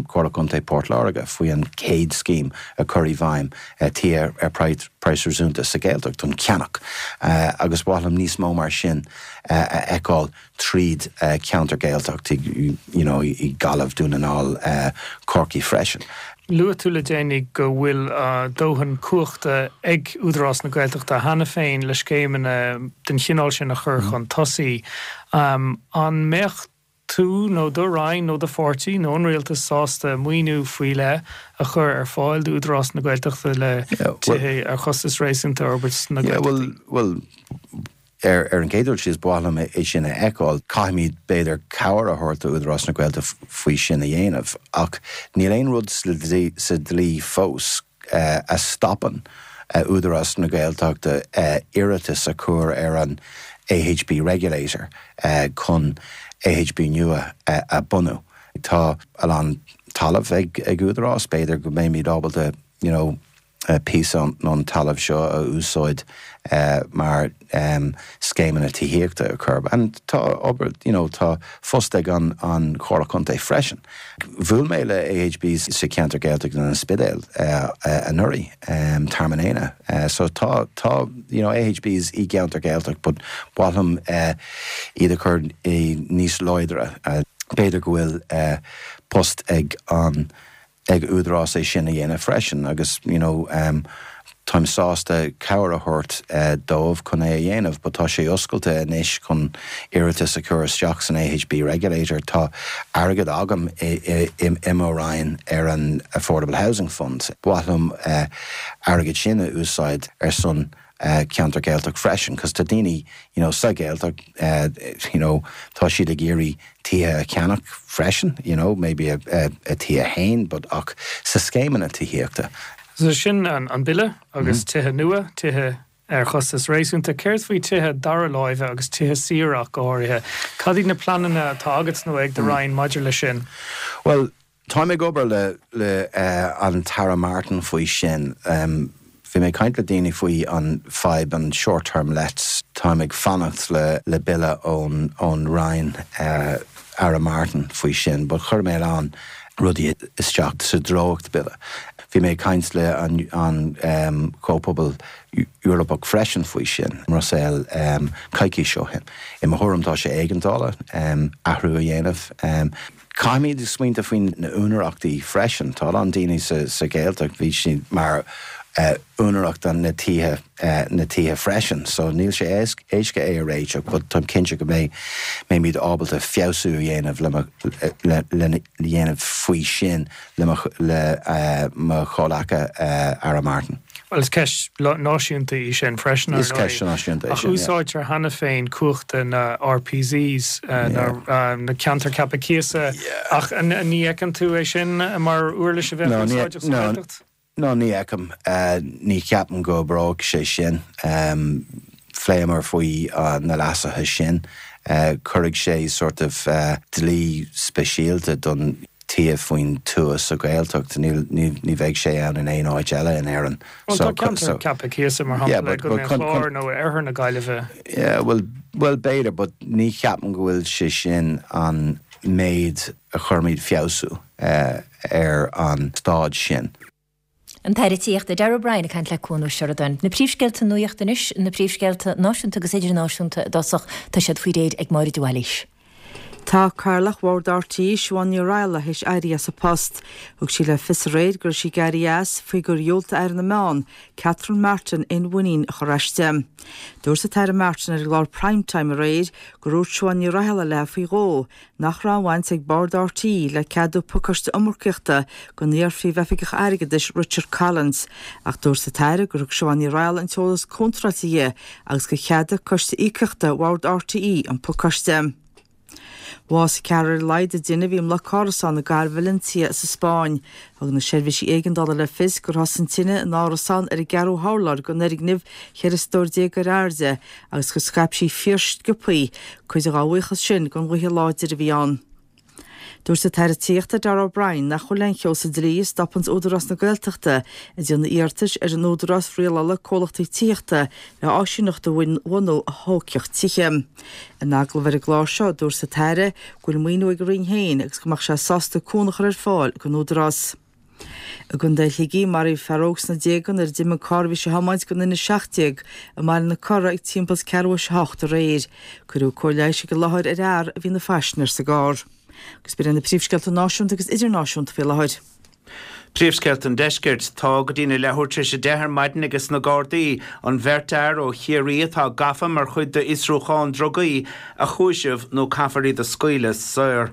Comhairle Contae Port Láirge faoi an chéad scéim a chur i bhfeidhm tithe ar praghas réasúnta sa Ghaeltacht don cheannach agus ba mhaith liom níos mó mar sin a fheiceáil tríd ceantar Gaeltacht you know i Gaillimh, Dún na nGall, Corcaigh freisin. Luaigh tú le déanaí go bhfuil dóthain cumhachta ag Údarás na Gaeltachta cheana féin le scéimeanna den chineál sin a chur chun tosaigh. An mbeadh tú nó do Roinn nó do pháirtí nó an Rialtas sásta maoiniú faoi leith a chur ar fáil d'Údarás na Gaeltachta le tithe ar chostas réasúnta a fhorbairt sna Gaeltachtaí? Bhuel, Ar an gcéad dul síos, ba mhaith liom é sin a fheiceáil. Caithfimid, b'fhéidir, cabhair a thabhairt do Údarás na Gaeltachta faoi sin a dhéanamh. Ach níl aon rud sa dlí fós a stopann Údarás na Gaeltachta iarratas a chur ar an AHB Regulator chun AHB nua a bhunú. Tá a lán talamh ag Údarás, b'fhéidir go mbeimid ábalta, you know, píosa den talamh seo a úsáid mar scéimeanna tithíochta a chur. And tá obair, you know, tá phost ag an an Chomhairle Contae freisin. Bhuail mé le AHBs sa cheantar Gaeltachta in An Spidéal anuraidh, Tearmann Éanna. So tá, tá, you know, AHBs i gceantar Gaeltacht but ba mhaith liom iad a chur i níos láidre. B'fhéidir go bhfuil post ag an ag Údarás é sin a dhéanamh freisin agus you know táim sásta cabhair a thabhairt dóibh chun é a dhéanamh but tá sé oscailte anois chun iarratas a chur isteach san AHB Regulator. Tá airgead agam i mo Roinn ar an Affordable Housing Fund. Ba mhaith liom airgead sin a úsáid ar son. ceantar Gaeltacht freisin cos tá daoine you know sa Ghaeltacht you know tá siad ag iarraidh tithe a cheannach freisin you know maybe a a tithe féin but ach sa scéimeanna tithíochta. So sin an bille agus tithe nua, tithe ar chostas réasúnta. Céard faoi tithe dara láimhe agus tithe saoire ach go háirithe? Cad iad na pleananna atá agat nó ag do Roinn maidir leis sin? Bhuel, Táim ag obair le le an tAire Martin faoi sin. Bhí mé ag caint le daoine faoi an fadhb an short term lets. Táim ag fanacht le le bille ón ón Roinn Aire Martin faoi sin but chuir mé a lán rudaí isteach sa dréacht bille. Bhí mé ag caint le an an Comhphobal Eorpach freisin faoi sin i mBruiséil coicís ó shin. I mo thuairim tá sé éigeandála athrú a dhéanamh. Caithfimid smaointeamh faoi na úinéireachtaí freisin. Tá a lán daoine sa Ghaeltacht, bhí siad mar úinéireacht na tithe, na tithe freisin. So níl sé éasca é a réiteach but táim cinnte go mbeidh, mbeimid ábalta feabhsú a dhéanamh le mo, le, le dhéanamh faoi sin le mo, le mo chomhleaca Aire Martin. Bhuel, is ceist náisiúnta í sin freisin, ar ndóigh. Is ceist náisiúnta é sin, yeah. Ach úsáidtear cheana féin cumhachta na RPZs, na Ceantair Ceaptha Cíosa, ach ní fheiceann tú é sin mar uirlis a bheadh úsáideach sa Ghaeltacht? No, ní fheicim. Ní cheapaim go oibreoidh sé sin. Phléamar faoi na leasuithe sin. Cuirfidh sé sort of dlí speisialta don tithe faoin tuath sa Ghaeltacht. Ní bheidh sé ann in aon áit eile in Éirinn. Bhuel, tá ceantar ceaptha cíosa, mar shampla, i gContae an Chláir nó i oirthear na Gaillimhe. Yeah, bhuel, bhuel b'fhéidir, but ní cheapaim go bhfuil sé sin an méid a chuirfimid feabhsú ar an staid sin. An tAire Tithíochta Darragh O'Brien ag caint le Cuan Ó Seireadáin. Na príomhscéalta nuachta anois, na príomhscéalta náisiúnta agus idirnáisiúnta i dtosach, tá siad faoi réir ag Máire de Bhailís. Tá Cathaoirleach Bhord RTÉ, Siobhán Ní Raghallaigh, théis éirí as a post. Thug sí le fios aréir go raibh sí ag éirí as faoi gur dhiúltaigh Aire na Meán, Catherine Martin, aon mhuinín a chur aisti. Dúirt an tAire Martin ar an gclár Prime Time aréir gur dhúirt Siobhán Ní Raghallaigh léi faoi dhó nach raibh aon bhaint ag Bord RTÉ le ceadú pacáiste iomarcaíochta don iar-phríomhoifigeach airgeadais Richard Collins, ach dúirt an tAire gur thug Siobhán Ní Raghallaigh an t-eolas contráilte di agus gur cheadaigh Coiste Íocaíochta Bhord RTÉ an pacáiste. Bhásaigh ceathrar ar a laghad i dtine a bhí i mbloc árasán i gcathair Valencia sa Spáinn. Thug na seirbhísí éigeandála le fios gur thosaigh an tine in árasán ar an gceathrú hurlár den fhoirgneamh 14 stór ar airde agus gur scaip sí fíorsciobthaí, cuid dá bhuíochas sin don ghaoth láidir a bhí ann. Dúirt an tAire Tithíochta Darragh O'Brien nach bhfuil aon cheo sa dlí a stopanns Údarás na Gaeltachta ag déanamh iarratais ar an Údarás Rialála Comhlachtaí Tithíochta le áisíneacht a bhunú a thógfadh tithe. In agallamh ar an gclár seo, dúirt an tAire go bhfuil maoiniú ag a Roinn féin agus go mbeadh sé sásta cúnamh a chur ar fáil don Údarás. I gContae Shligigh, maraíodh fear óg sna déaga nuair a d'imigh an carr a bhí sé a thiomáint den N17 i mBaile na Cora ag timpeall is ceathrú théis a hocht aréir. Cuireadh cóir leighis ag an láthair ar fhear a bhí ina phaisinéir sa gcarr. Agus b'in iad na príomhscéalta náisiúnta agus idirnáisiúnta faoi láthair. Príomhscéalta an Deiscirt. Tá go dtína leathuair tar éis a 10 ar maidin ages na Gardaí an bheirt fhear ó Chiarraí atá gafa mar chuid d'fhiosrúchán drugaí a chúiseamh nó caithfear iad a scaoileadh saor.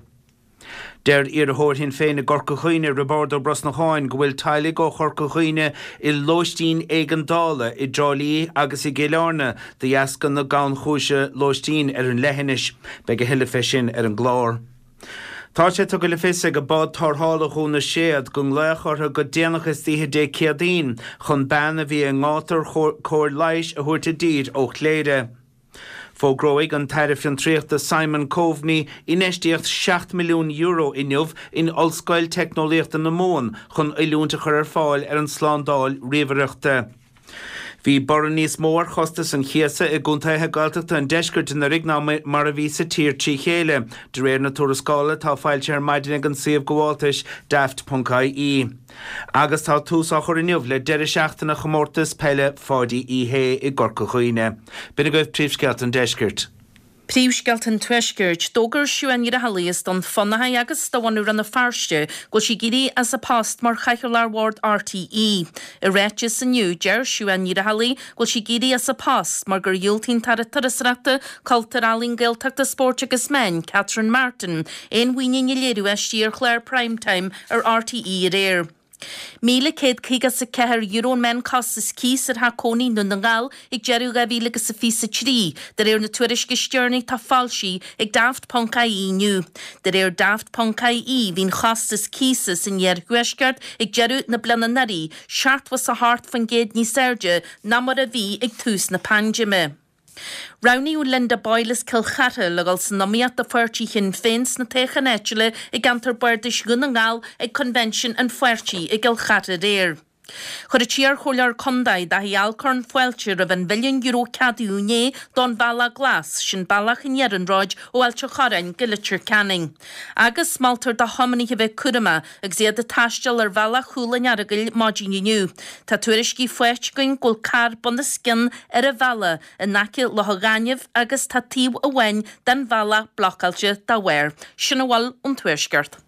Deir iarrthóir Shinn Féin i gCorca Dhuibhne, Roibeárd Ó Brosnacháin, go bhfuil teaghlaigh ó Chorca Dhuibhne i lóistín éigeandála i dTrá Lí agus i gCill Airne de dheasca na gannchúise lóistín ar an leithinis. Beidh a thuilleadh fé sin ar an gclár. Tá sé tugtha le fios ag Bád Tarrthála Dhún na Séad go nglaodh orthu go déanach istoíche Dé Céadaoin chun bean a bhí i ngátar cóir leighis a thabhairt i dtír ó Chléire. Fógróidh an tAire Fiontraíochta Simon Coveney infheistíocht €7 milliún inniu in Ollscoil Teicneolaíochta na Mumhan chun oiliúint a chur ar fáil ar an tslándáil ríomhaireachta. Bhí borradh níos mó ar chostas an chíosa i gcontaetha Gaeltachta an deiscirt anuraidh ná mar a bhí sa tír trí chéile, de réir na tuarascála atá foilsithe ar maidin ag an suíomh gabháltais Daft.ie. Agus tá tús á chur inniu le deireadh seachtaine chomórtas peile Pháidí Uí Shé i gCorca Dhuibhne. B'in agaibh príomhscéalta an deiscirt. Príomhscéalta an Tuaiscirt. D'fhógair Siobhán Ní Raghallaigh as Dún Fionnachaidh agus de bhunadh Rann na Feirste go bhfuil sí ag éirí as a post mar Chathaoirleach Bhord RTÉ. I ráiteas inniu, deir Siobhán Ní Raghallaigh go bhfuil sí ag éirí as a post mar gur dhiúltaigh an tAire Turasóireachta, Cultúir, Ealaíon, Gaeltachta, Spóirt agus Meán, Catherine Martin, aon mhuinín a léiriú aisti ar chlár Prime Time ar RTÉ aréir. €1,154 an meánchostas cíos ar theach cónaí i nDún na nGall ag deireadh 2023, de réir na tuairisce is deireanaí atá foilsithe ag Daft Ponc IE inniu. De réir Daft Ponc IE, bhí an chostas cíosa san iarthuaisceart ag deireadh na bliana anuraidh 78% níos airde ná mar a bhí ag tús na paindéime. Roghnaíodh Linda Boyle as Cill Chartha le dhul san iomaíocht do pháirtí Shinn Féin sna toghcháin áitiúla i gceantar Bardais Dhún na nGall ag Coinbhinsean an pháirtí i gCill Chartha aréir. Chuir an t-iarchomhairleoir contae, Daithí Alcorn, fáilte roimh an mhilliún euro a ceadaíodh inné don Bhealach Glas, sin bealach an iarnróid ó Ailt an Chorráin go Leitir Ceanainn. Agus moltar do thiománaithe bheith cúramach agus iad ag taisteal ar bhealach Chúil an Earagail maidin inniu. Tá tuairiscí faighte againn go bhfuil carr bunoscionn ar an bhealach in aice Loch an Ghainimh agus tá taobh amháin den bhealach blocáilte dá bharr. Sin a bhfuil ón Tuaisceart.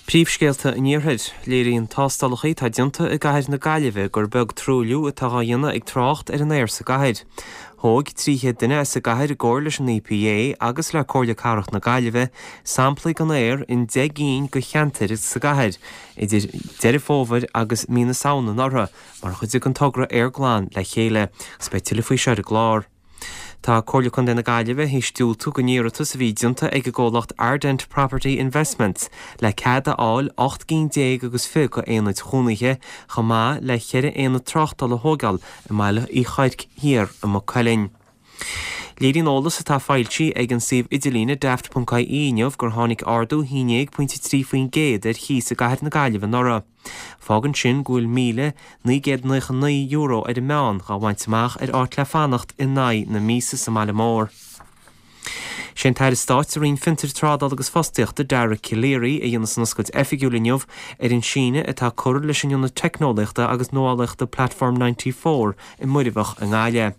Príomhscéalta an Iarthair. Léiríonn tástálacha atá déanta i gcathair na Gaillimhe gur beag truailliú atá dhá dhéanamh ag trácht ar an aer sa gcathair. Thóg 300 duine as an gcathair i gcomhar leis an EPA agus le Comhairle Cathrach na Gaillimhe samplaí den aer in 10 gcinn de cheantair sa gcathair idir Deireadh Fómhair agus mí na Samhna anuraidh mar chuid den togra Aer Glan le Chéile agus beidh tuilleadh faoi seo ar an gclár. Tá Comhairle Contae na Gaillimhe théis diúltú don iarratas a bhí déanta ag an gcomhlacht Ardent Property Investments le cead a fháil 18 gcinn agus 20 d'aonaid chónaithe chomh maith le ceithre aonad tráchtála a thóigeáil i mBaile Uí Chuirc Thiar i Maigh Cuilinn. Léiríonn eolas atá foilsithe ag an suíomh idirlíne daft.ie inniu gur tháinig ardú 11.3% ar chíos i gcathair na Gaillimhe anuraidh. Fágann sin go bhfuil €1,999 ar an meán dhá bhaint amach ar áit le fanacht in aghaidh na míosa sa mbaile mór. Sé an tAire Stáit sa Roinn Fiontair, Trádála agus Fostaíochta, Dara Calleary, a dhéanfas an oscailt oifigiúil inniu ar an síneadh atá curtha leis an Ionad Teicneolaíochta agus Nuálaíochta Platform 94 i Muirbheach i nGaillimh.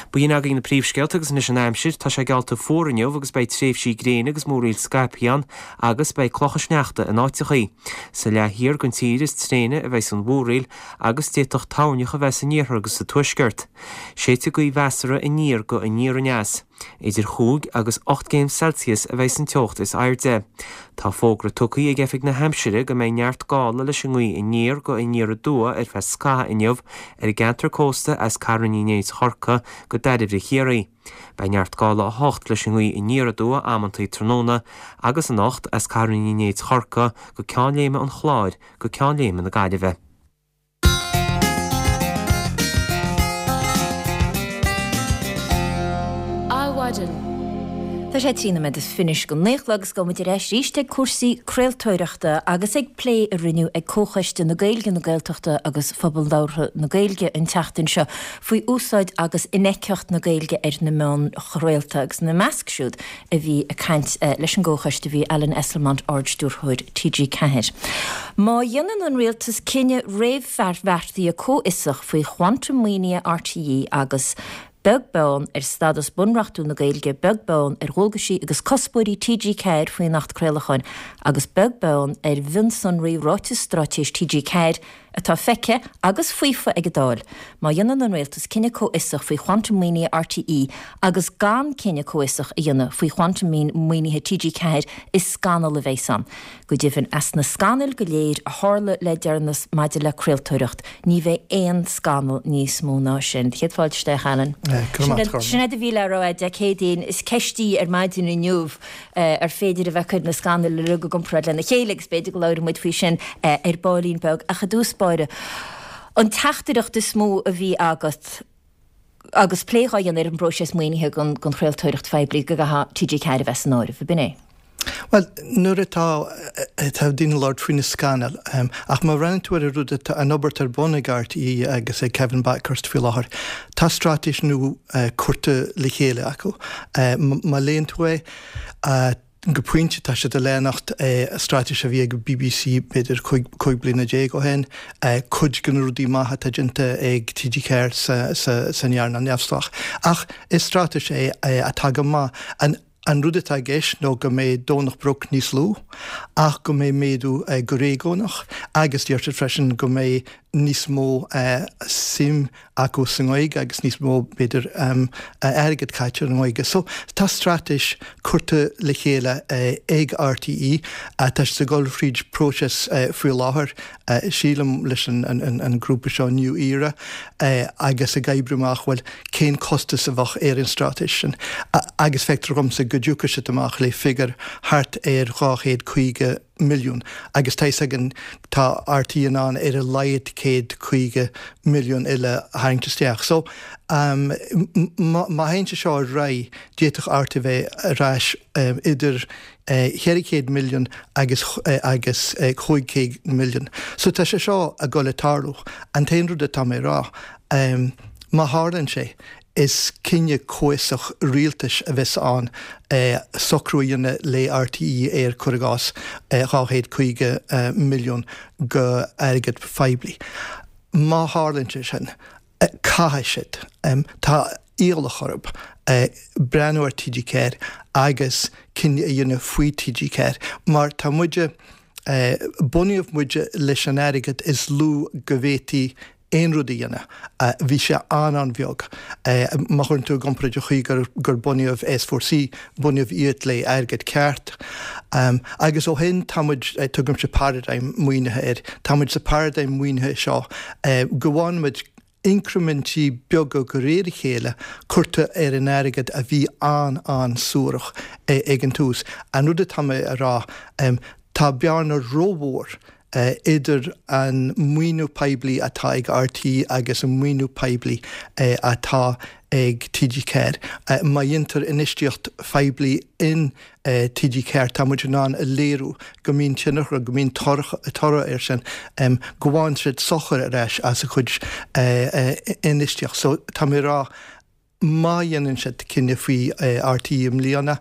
B'in agaibh na príomhscéalta agus anois an aimsir. Tá sé geallta fuar inniu agus beidh tréimhsí gréine agus múraíl scaipthe ann agus beidh clocha sneachta in áiteachaí. Sa leath thiar den tír is tréine a bheidh an mhúraíl agus d'fhéadfadh toirneach a bheith san iarthar agus sa tuaisceart. Séidfidh gaoth mheasartha aniar go aniar aneas. Idir chúig agus 8 gcéim Celsius a bheidh san teocht is airde. Tá fógra tugtha ag Oifig na hAimsire go mbeidh neart gála leis an ngaoth aniar go aniar aduaidh ar feadh scaithimh inniu ar an gceantar cósta as Carn Uí Néid Chorcaí go Dairbhre Chiarraí. Beidh neart gála 8 leis an ngaoth aniar aduaidh amantaí tráthnóna agus anocht as Carn Uí Néid Chorcaí go Ceann Léime an Chláir go Ceann Léime na Gaillimhe. Adhmhaidin. Tá sé 13 nóiméad is fiche go naoi a chlog agus gabhfaidh muid ar ais arís ag cúrsaí craoltóireachta agus ag plé a rinneadh ag Comhchoiste na Gaeilge, na Gaeltachta agus Phobal Labhartha na Gaeilge an tseachtain seo faoi úsáid agus infheictheacht na Gaeilge ar na meáin chraolta agus ina measc siúd a bhí ag caint leis an gComhchoiste bhí Alan Esslemont, Ard-Stiúrthóir TG4. Má dhéanann an Rialtas cinneadh réamhbheartaithe comhfhiosach faoi quantum maoinithe RTÉ agus, beag beann ar stadas bunreachtúil na Gaeilge, beag beann ar dhualgaisí agus cuspóirí TG4 faoin Acht Craolacháin agus beag beann ar mhionsonraí Ráiteas Straitéis TG4, atá feicthe agus faofa ag an Dáil, má dhéanann an Rialtas cinneadh comhfhiosach faoi quantum maoinithe RTÉ agus gan cinneadh comhfhiosach a dhéanamh faoi quantum maoinithe TG4 is scannal a bheas ann. Go deimhin, as na scannail go léir a tharla le deireanas maidir le craoltóireacht, ní bheidh aon scannal níos mó ná sin. Céad fáilte isteach, Alan. Sin é do mhíle rá Dé Céadaoin. Is ceist í ar maidin inniu. ar féidir a bheith ag cur na scannail uilig i gcomparáid lena chéile agus b'fhéidir go labhróidh muid faoi sin ar baillín beag. Ach i dtús báire, an teachtaireacht is mó a bhí agat agus plé dhá dhéanamh ar an bpróiseas maoinithe don chraoltóireacht phoiblí go gcaithfeadh TG4 a bheith san áireamh, ab in é? Bhuel, nuair atá atá daoine ag labhairt faoi na scannail, ach má bhreathnaíonn tú ar an rud atá, an obair atá ar bun ag RTÉ agus ag Kevin Bakhurst faoi láthair, tá straitéis nua curtha le chéile acu. Má léann tú é, go pointe tá siad ag leanacht straitéis a bhí ag BBC b'fhéidir 15 bliana ó shin, cuid de na rudaí maithe atá déanta ag TG4 san earnáil neamhspleách. Ach is straitéis é atá go maith. An rud atá i gceist nó go mbeidh Domhnach Broc níos lú ach go mbeidh méadú go réigiúnach agus deir siad freisin go mbeidh. níos mó suim acu sa nGaeilge agus níos mó, b'fhéidir, airgead caite ar an nGaeilge. So, tá straitéis curtha le chéile ag RTÉ. Tá siad ag dul thríd próiseas faoi láthair, sílim, leis an grúpa seo New Era agus ag oibriú amach, bhuel, cén costas a bheadh ar an straitéis sin. Agus feictear dhomsa go dtiocfaidh siad amach le figiúr thart ar 250 milliún agus tá fhios againn tá RTÉ in ann ar a laghad 150 milliún eile a tharraingt isteach. So má théann sé seo ar aghaidh d'fhéadfadh RTÉ bheith ar ais idir 400 milliún agus agus 500 milliún. So tá sé seo ag dul ag tarlú. An t-aon rud atá mé a rá, má tharlaíonn sé, Is cinneadh comhfhiosach rialtais a bheas ann socrú a dhéanamh le RTÉ ar, cuir i gcás, 250 milliún go airgead phoiblí. Má tharlaíonn sé sin, caithfidh siad, tá iallach orthu, breathnú ar TG4 agus cinneadh a dhéanamh faoi TG4 mar tá muide, bunaíodh muide leis an airgead is lú go bhféadfaí aon rud a dhéanamh. Bhí sé an-an-bheag. Má chuireann tú i gcomparáid an chaoi gur gur bunaíodh S4C, bunaíodh iad le airgead ceart. Agus ó shin tá muid, tugaimse paradigm maoinithe air, tá muid sa paradigm maoinithe seo go bhfaigheann muid incrimintí beaga de réir a chéile curtha ar an airgead a bhí an-an-suarach ag an tús. An rud atá mé a rá, tá bearna rómhór idir an maoiniú poiblí atá ag RTÉ agus an maoiniú poiblí atá ag TG4. Má dhéantar infheistíocht phoiblí in TG4 tá muid in ann a léiriú go mbíonn tionchar, go mbíonn toradh air sin, go bhfaigheann siad sochar ar ais as a chuid infheistíocht. So tá mé ag rá Má dhéanann siad cinneadh faoi RTÉ i mbliana,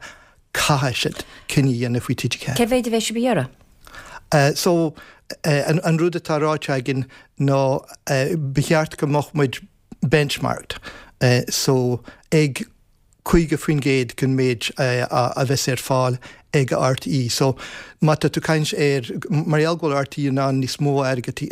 caithfidh siad cinneadh a dhéanamh faoi TG4. Cé mhéid a bheidh sibh a iarraidh? So, an rud atá ráite againn ná ba cheart go mbeadh muid benchmarked, so ag 50% den méid a bheas ar fáil ag RTÉ. So, má tá tú ag caint ar, mar gheall go bhfuil RTÉ in ann níos mó airgead,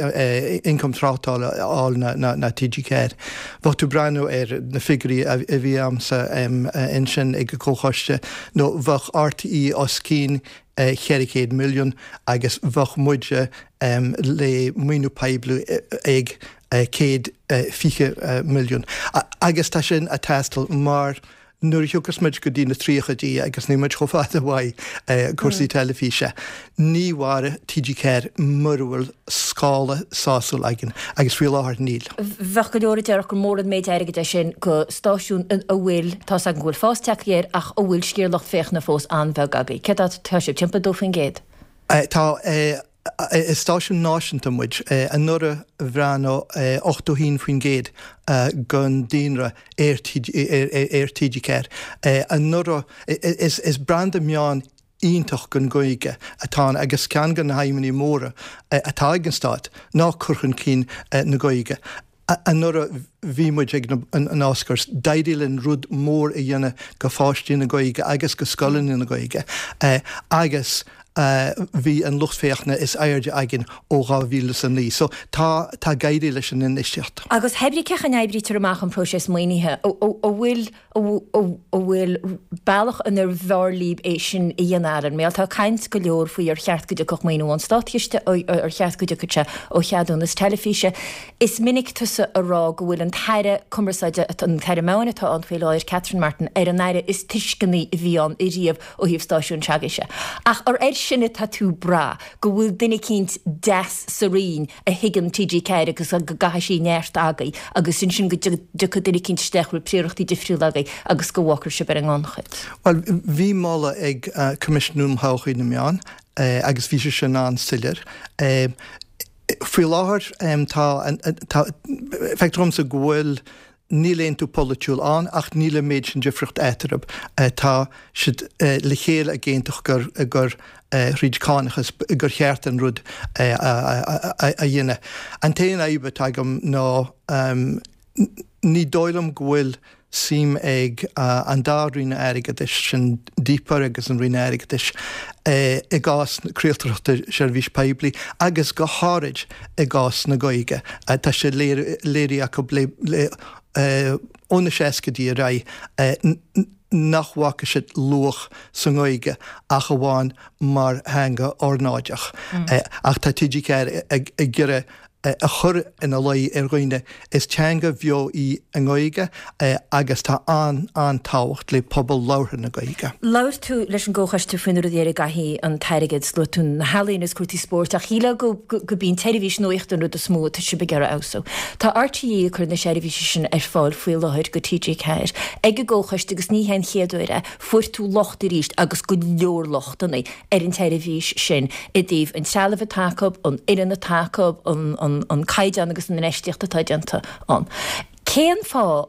ioncam tráchtála a fháil ná TG4, bheadh tú ag breathnú ar na figiúirí a bhí a'msa ansin ag an gComhchoiste, nó bheadh RTÉ os cionn 400 milliún agus bheadh muide le maoiniú poiblí ag 120 milliún. Agus tá sin a' teastáil mar Nuair a thiocfas muid go dtí na tríochaidí, agus níl muid chomh fada uaidh, cúrsaí teilifíse, ní mhairfidh TG4 mura bhfuil scála sásúil againn, agus faoi láthair níl. Bheadh go leor a déarfadh gur mór an méid airgid é sin go stáisiún a bhfuil, tá's agam go bhfuil fás tagtha air, ach a bhfuil sciar lucht féachana fós an-bheag agaibh. Céard atá sibh, timpeall 2%? Tá. Is stáisiún náisiúnta muid. Anuraidh bhreathnaigh 81% den daonra ar TG4. Anuraidh, is branda meán iontach don Ghaeilge atá ann agus ceann de na haidhmeanna móra atá ag an Stát ná cur chun cinn na Gaeilge. Anuraidh bhí muid ag an Oscars. D'éirigh linn rud mór a dhéanamh go pháistí na Gaeilge agus go scoileanna na Gaeilge agus bhí an lucht féachana is airde againn ó 2009. So tá, tá ag éirí leis an infheistíocht. Agus hé brí cén chaoi a n-oibrítear amach an próiseas maoinithe, an bhfuil an bhfuil bealach inar bhfearr libh é sin a dhéanamh, Alan? Mar tá caint go leor faoi ar cheart go dtiocfadh maoiniú ón státchiste, ar cheart go dtiocfadh sé ó cheadúnas teilifíse. Is minic tusa a rá go bhfuil an tAire Cumarsáide, an tAire Meáin atá ann faoi láthair, Catherine Martin, ar an Aire is tuisceanaí a bhí ann ariamh ó thaobh stáisiúin s'agaibhse. Ach ar air sin atá tú ag brath, go bhfuil duine eicínt deas sa Roinn a thuigeann TG4 agus go gcaithfidh sí neart agaibh agus ansin go dtiocfaidh duine eicínt isteach a bhfuil príorachtaí difriúla agaibh agus go bhfágfar sibh ar an ngannchuid. Bhuel, bhí moladh ag Coimisiún um Thodhchaí na Meán agus bhí sé sin an-soiléir. Faoi láthair tá, tá, feictear dhomsa go bhfuil, Níl aontú polaitiúil ann ach níl an méid sin difríocht eatarthu. Tá siad le chéile ag aontacht gur gur thríd cánachas gur cheart an rud a dhéanamh. An t-aon fhadhb atá agam ná ní dóigh liom go bhfuil. suim ag an dá Roinn Airgeadais, sin DPAR agus an Roinn Airgeadais, i gcás craoltóireachta seirbhís poiblí agus go háirid i gcás na Gaeilge. Tá sé léirithe acu le ó na seascaidí ar aghaidh nach bhfaca siad luach sa nGaeilge ach amháin mar theanga ornáideach. Ach tá TG4 ag iarraidh a chur ina luí ar dhaoine, is teanga bheo í an Ghaeilge agus tá an-an-tábhacht le pobal labhartha na Gaeilge. Labhair tú leis an gComhchoiste faoi na rudaí ar a gcaithfidh an t-airgead, luaigh tú na healaíona agus cúrsaí spóirt ach shílfeá go gurb í an tseirbhís nuachta an rud is mó atá sibh ag iarraidh a fheabhsú. Tá RTÉ ag cur na seirbhíse sin ar fáil faoi láthair go TG4 ag an gComhchoiste agus ní hé an chéad uair é. Fuair tú locht arís agus go leor lochtanna. ar an tseirbhís sin i dtaobh an trealaimh atá acu, an fhoireann atá acu, an caighdeán agus an infheistíocht atá déanta ann. Cén fáth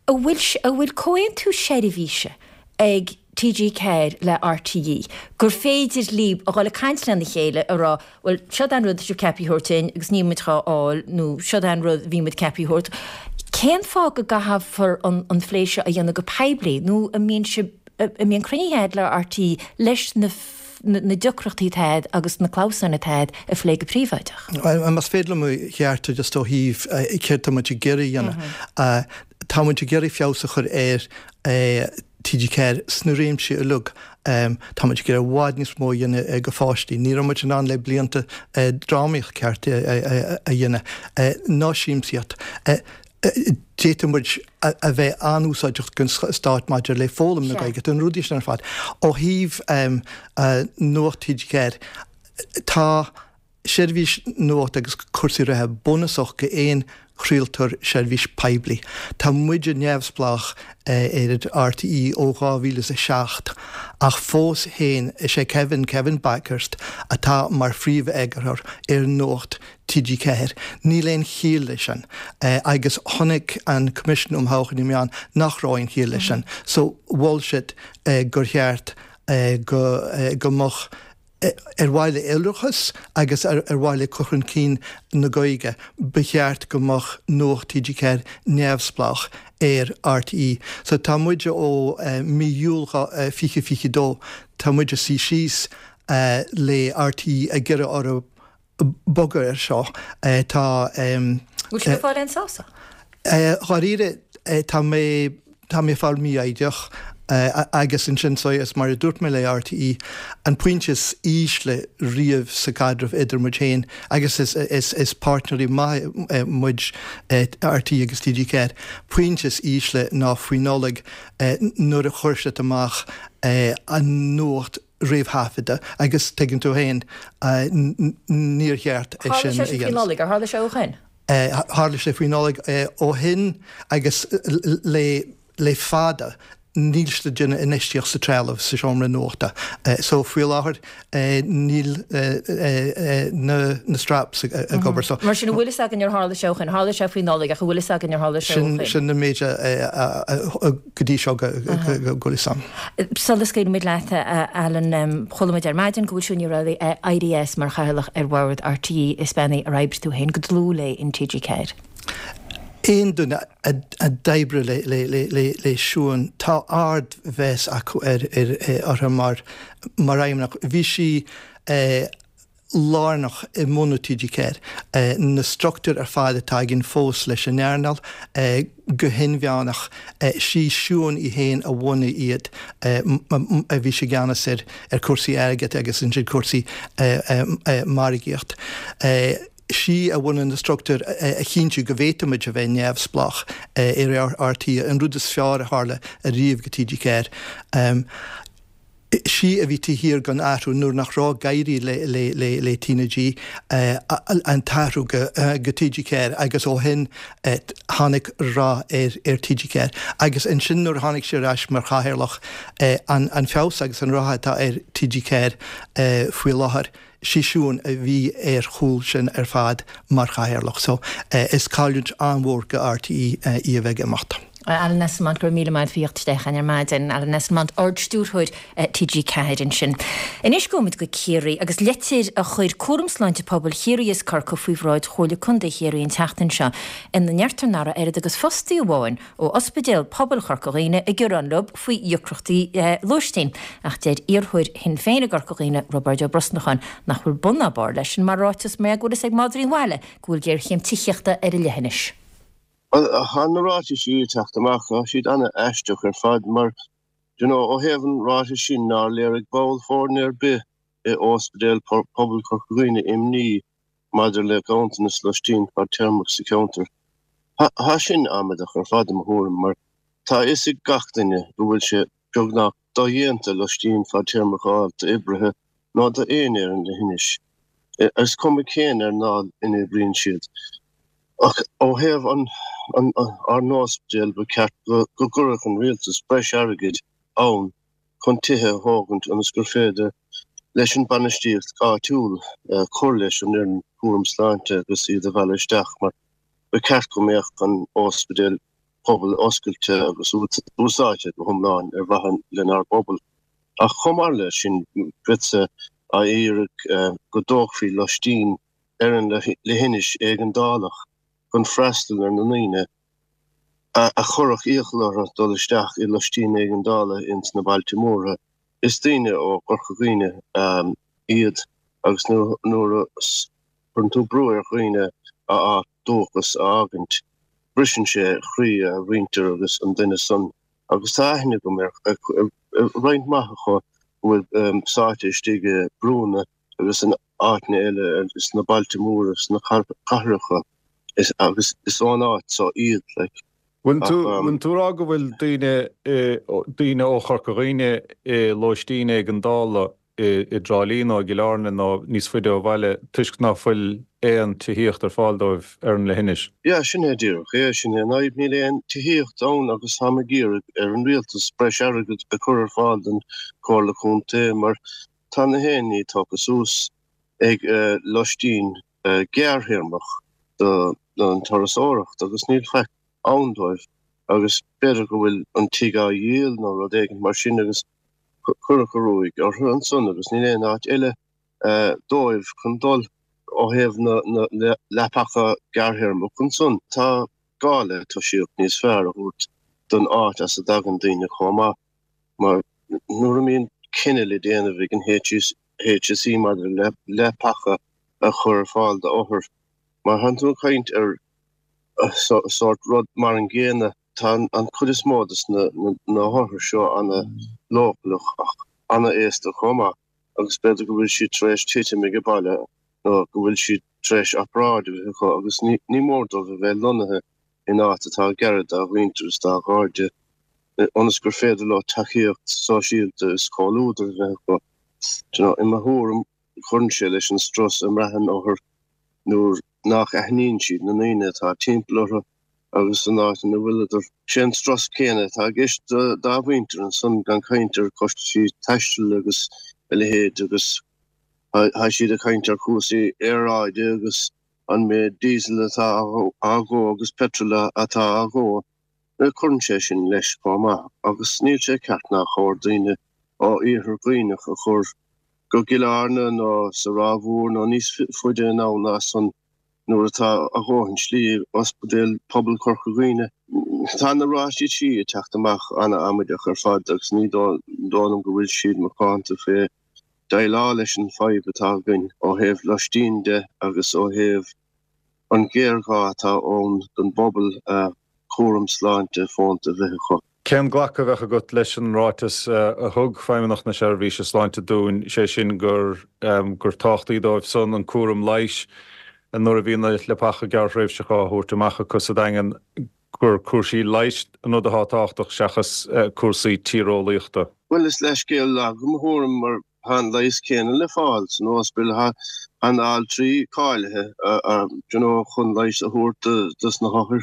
a bhfuil a bhfuil comhaontú seirbhíse ag TG4 le RTÉ gur féidir libh a dhul ag caint lena chéile a rá bhuel seod é an rud atá sibh ceaptha a thabhairt dúinn agus níl muid dhá fháil nó seod é an rud a bhí muid ceaptha a thabhairt. Cén fáth go gcaithfear an phlé seo a dhéanamh go poiblí nó an mbíonn sibh an mbíonn cruinnithe agat le RTÉ leis na na deacrachtaí atá agat agus na clamhsáin atá agat a phlé go príobháideach. Más féidir liom a cheartú just ó thaobh céard tá muid ag iarraidh a dhéanamh. Tá muid ag iarraidh feabhas a chur ar TG4 sna réimsí uilig. Tá muid ag iarraidh i bhfad níos mó a dhéanamh go pháistí. Ní raibh muid in ann le blianta drámaíocht ceart a dhéanamh, ná siamsaíocht. D'fhéadfadh muid a bheith an-úsáideach don stát maidir le foghlaim na Gaeilge, na rudaí sin ar fad. Ó thaobh Nuacht TG4, tá seirbhís nuachta agus cúrsaí reatha bunúsach go aon chraoltóir seirbhís poiblí. Tá muide neamhspleách ar RTÉ ó 2007 ach fós féin is é Kevin, Kevin Bakhurst, atá mar phríomh-eagarthóir ar Nuacht TG4. Níl aon chiall leis sin. Agus chonaic an Coimisiún um Thodhchaí na Meán nach raibh aon chiall leis sin. So mhol siad gur cheart go go mbeadh ar mhaithe le iolrachas agus ar mhaithe le cur chun cinn na Gaeilge, ba cheart go mbeadh Nuacht TG4 neamhspleách ar RTÉ. So tá muid ó mí Iúil 2022, tá muid ag suí síos le RTÉ ag iarraidh orthu bogadh air seo. Tá. Bhfuil sibh ag fáil aon sásamh? Dháiríre, tá mé, tá mé ag fáil mífhoighdeach agus ansin so is mar a dúirt mé le RTÉ, an pointe is ísle riamh sa gcaidreamh idir muid féin agus is, is, is páirtnéirí maithe muid, RTÉ agus TG4, pointe is ísle ná faoi Nollaig nuair a chuir siad amach an nuacht réamhthaifeadta agus tuigeann tú féin, níor cheart é sin a dhéanamh. Tharla sé faoi Nollaig, ar tharla sé ó shin? Tharla sé faoi Nollaig ó shin agus le fada níl siad ag déanamh infheistíocht sa trealamh sa seomra nuachta. So faoi láthair níl na straps ag obair. So. Mar sin an bhfuil fhios againn ar tharla sé ó shin? Tharla sé faoi Nollaig ach an bhfuil fhios againn ar tharla sé ó shin? Sin an méid a go dtí seo go bhfuil fhios a'm. Sula scaoilfimid leat, a Alan, chuala muid ar maidin go bhfuil Siún Ní Raghallaigh ag éirí as mar chathaoirleach ar bhord RTÉ. Is bean í ar oibrigh tú féin go dlúth léi in TG4. Aon duine a d'oibrigh le Siún, tá ardmheas acu uirthi mar fheidhmeannach. Bhí sí lárnach i mbunú TG4. Na struchtúir ar fad atá againn fós leis an earnáil, go hinmheánach, sí Siún í féin a bhunaigh iad, a bhí sí i gceannas ar cúrsaí airgid agus ansin cúrsaí margaíocht. Sí a bhunaigh na struchtúir a chinntiú go bhféadfaimid a bheith neamhspleách ar RTÉ, an rud is fearr a tharla ariamh go TG4. Sí a bhí taobh thiar den athrú nuair nach raibh ag éirí le TnaG, an t-athrú go TG4 agus ó shin tháinig rath ar TG4. Agus ansin nuair a tháinig sí ar ais mar chathaoirleach, an feabhas agus an rath atá ar TG4 faoi láthair, sí Siún a bhí ar chúl sin ar fad mar chathaoirleach. So is cailliúint an-mhór go RTÉ í a bheith ag imeacht. Alan Esslemont, go raibh míle maith agat faoi theacht isteach chugainn ar maidin. Alan Esslemont, Ard-Stiúrthóir TG4 ansin. Anois gabhfaimid go Ciarraí agus litir a chuir Cúram Sláinte Pobail Chiarraí is Corcaigh faoi bhráid Chomhairle Contae Chiarraí an tseachtain seo ina ndeirtear nach raibh oiread agus fostaí amháin ó Ospidéal Pobail Chorca Dhuibhne ag gearán leo faoi dheacrachtaí lóistín. Ach deir iarrthóir Shinn Féin i gCorca Dhuibhne, Roibeárd Ó Brosnacháin, nach bhfuil bun ná barr leis sin mar ráiteas mar go bhfuil fhios ag madraí an bhaile go bhfuil géarchéim tithíochta ar an leithinis. Bhuel, tá na ráitisí ag teacht amach, tá siad ana-aisteach ar fad mar, do you know, ó thaobh an ráitis sin nár léirigh ball foirne ar bith i Ospidéal Pobail Chorca Dhuibhne imní maidir le ganntanas loistín fadtéarmach sa cheantar. Tá sin amaideach ar fad i mo thuairim mar tá a fhios ag gach duine go bhfuil sé beagnach dodhéanta loistín fadtéarmach a fháil d'oibrithe nó d'éinne ar an leithinis, is cuma cén earnáil ina oibríonn siad. Ach ó thaobh ár n-ospidéal, ba cheart go gcuirfeadh an rialtas breis airgid ann chun tithe a thógaint ionas gur féidir leis an bainistíocht áitiúil cur leis an fhoireann cúram sláinte agus iad a mhealladh isteach mar ba cheart go mbeadh an ospidéal pobail oscailte agus úsáidte go hiomlán ar mhaithe lenár bpobal. Ach chomh maith leis sin, bheadsa á iarraidh go dtógfaí loistín ar an leithinis éigeandálach chun freastal ar na ndaoine a chuirfeadh iachall orthu dul isteach i loistín éigeandála ins na bailte móra. Is daoine ó Chorca Dhuibhne iad agus nuair a chuireann tú brú ar dhaoine a áit dúchas a fhágaint, briseann sé croí a mhuintir agus an duine san agus tá aithne agam ar roinnt mhaith acu a bhfuil sáite istigh i brúnna agus in áiteanna eile sna bailte móra, sna cathracha agus is ón áit so iad like. Bhfuil tú, bhfuil tú ag rá go bhfuil daoine, daoine ó Chorca Dhuibhne i lóistín éigeandála i dTrá Lí nó i gCill Airne nó níos faide ó bhaile toisc ná fuil aon tithíocht ar fáil dóibh ar an leithinis? Yeah, sin é díreach é, sin é an fhadhb, níl aon tithíocht ann agus táim ag iarraidh ar an rialtas breis airgid a chur ar fáil don Chomhairle Contae mar tá na haon ní tógtha suas ag loistín gearrthéarmach don turasóireacht agus níl faic ann dóibh agus b'fhéidir go bhfuil an tigh á dhíol nó rud éigin mar sin agus cuireadh an ruaig orthu ansan agus níl aon áit eile dóibh chun dul ó thaobh na leapacha gearrthéarmach ansan. Tá gá le tosaíocht níos fearr a thabhairt don áit as a dtagann daoine chomh maith mar nuair a mbíonn cinneadh le déanamh ag an HSE maidir le leapacha a chur ar fáil d'othair mar tánn tú ag caint ar sórt rud mar an gcéanna. Tá an chuid is mó de na hothair seo ana-leochaileach ach ana-aosta chomh maith agus b'fhéidir go bhfuil siad tar éis titim ag baile nó go bhfuil siad tar éis obráid a bheith acu agus ní mór dóibh a bheith lonnaithe in áit atá gar dá mhuintir is dá gcairde ionas gur féidir leo tacaíocht sóisialta is comhluadar a bheith acu. I mo thuairim cuireann sé leis an strus a mbraitheann othair nuair nach aithníonn siad na ndaoine atá timpeall orthu agus san áit ina bhfuileadar. Sé an strus céanna atá i gceist dá mhuintir ansan, gan caint ar chostaisí taistil agus a leithéid agus tá siad ag caint ar chúrsaí aeráide agus an méid diesel atá á dhó agus petrol atá á dhó. Cuireann sé sin leis chomh maith agus níl sé ceart nár chóir daoine ó Iarthar Dhuibhneach a chur go gCill Airne nó sa Ráth Mhór nó níos faide anonn ná san nuair atá a dhóthain slí ag Ospidéal Pobail Chorca Dhuibhne. Tá na ráitisí ag teacht amach ana-amaideach ar fad agus ní dóigh liom go bhfuil siad macánta fé déileáil leis an fadhb atá againn ó thaobh loistín de agus ó thaobh an ghéarghá atá ann don bpobal cúram sláinte fónta a bheith acu. Cén glacadh a bheadh agat leis an ráiteas a thug Feidhmeannacht na Seirbhíse Sláinte dúinn, sé sin gur gur tábhachtaí dóibh san an cúram leighis nuair a bhíonn na leapacha gearrthréimhseacha á thabhairt amach acu sa Daingean, gur cúrsaí leighis an rud atá tábhachtach seachas cúrsaí tíreolaíochta? Bhuel, is leithscéal lag i mo thuairim mar tá an leigheas céanna le fáil san ospidéal, tá na altraí cáilithe you know chun leigheas a thabhairt dos na hothair.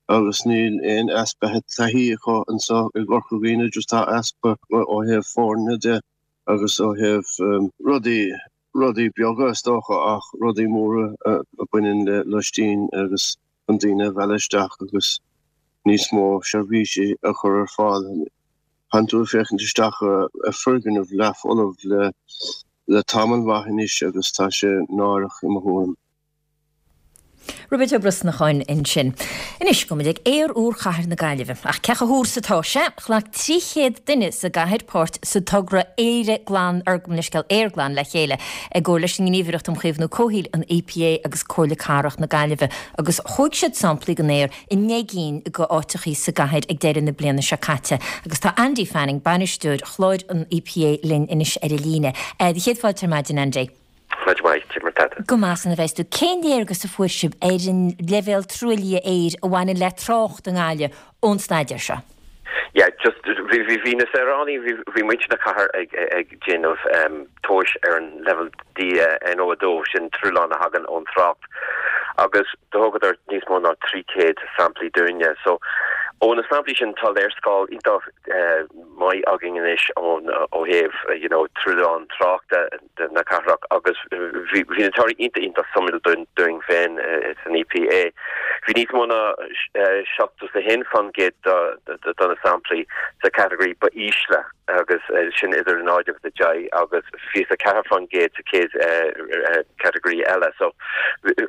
agus níl aon easpa taithí acu anseo i gCorca Dhuibhne, just tá easpa ó thaobh foirne de agus ó thaobh rudaí, rudaí beaga is dócha ach rudaí móra a bhaineann le loistín agus chun daoine a mhealladh isteach agus. Níos mó seirbhísí a chur ar fáil. Tánn tú ag féachaint isteach ar foirgneamh leathfholamh le tamall maith anois agus tá sé náireach i mo thuairim. Roibeard Ó Brosnacháin ansin. Anois, gabhfaidh muid ag aer úr chathair na Gaillimhe. Ach cé chomh húr is atá sé? Ghlac 300 duine sa gcathair páirt sa togra Éire Glan, or gabh mo leithscéal, Aer Glan le Chéile, i gcomhar leis an nGníomhaireacht um Chaomhnú Comhshaoil, an EPA, agus Comhairle Cathrach na Gaillimhe, agus thóg siad samplaí den aer i ndeich gcinn de áiteachaí sa gcathair ag deireadh na bliana seo caite. Agus tá Andy Fanning, bainisteoir chláir an EPA linn anois ar an líne. Do chéad fáilte ar maidin, Andy. Maidin mhaith, cad é mar tá tú. Go maith san a bheas tú. Cén léargas a fuair sibh ar an leibhéal truaillithe aeir a bhaineann le trácht i nGaillimh ón staidéar seo? Yeah, just, bhí, bhí, bhí na saoránaigh, bhí, bhí muintir na cathair ag, ag déanamh tomhais ar an leibhéal NO2, sin truailleán a thagann ón trácht, agus do thógadar níos mó ná 300 samplaí dúinne. So, ó na samplaí sin tá léarscáil iontach maith againn anois ón, ó thaobh, you know, truailleán tráchta. na cathrach agus bhí na torthaí iontach iontach suimiúil dúinn féin san EPA. Bhí níos mó ná 71% de na samplaí sa category ba ísle agus sin idir 0 agus 10 agus 24% sa chéad category eile. So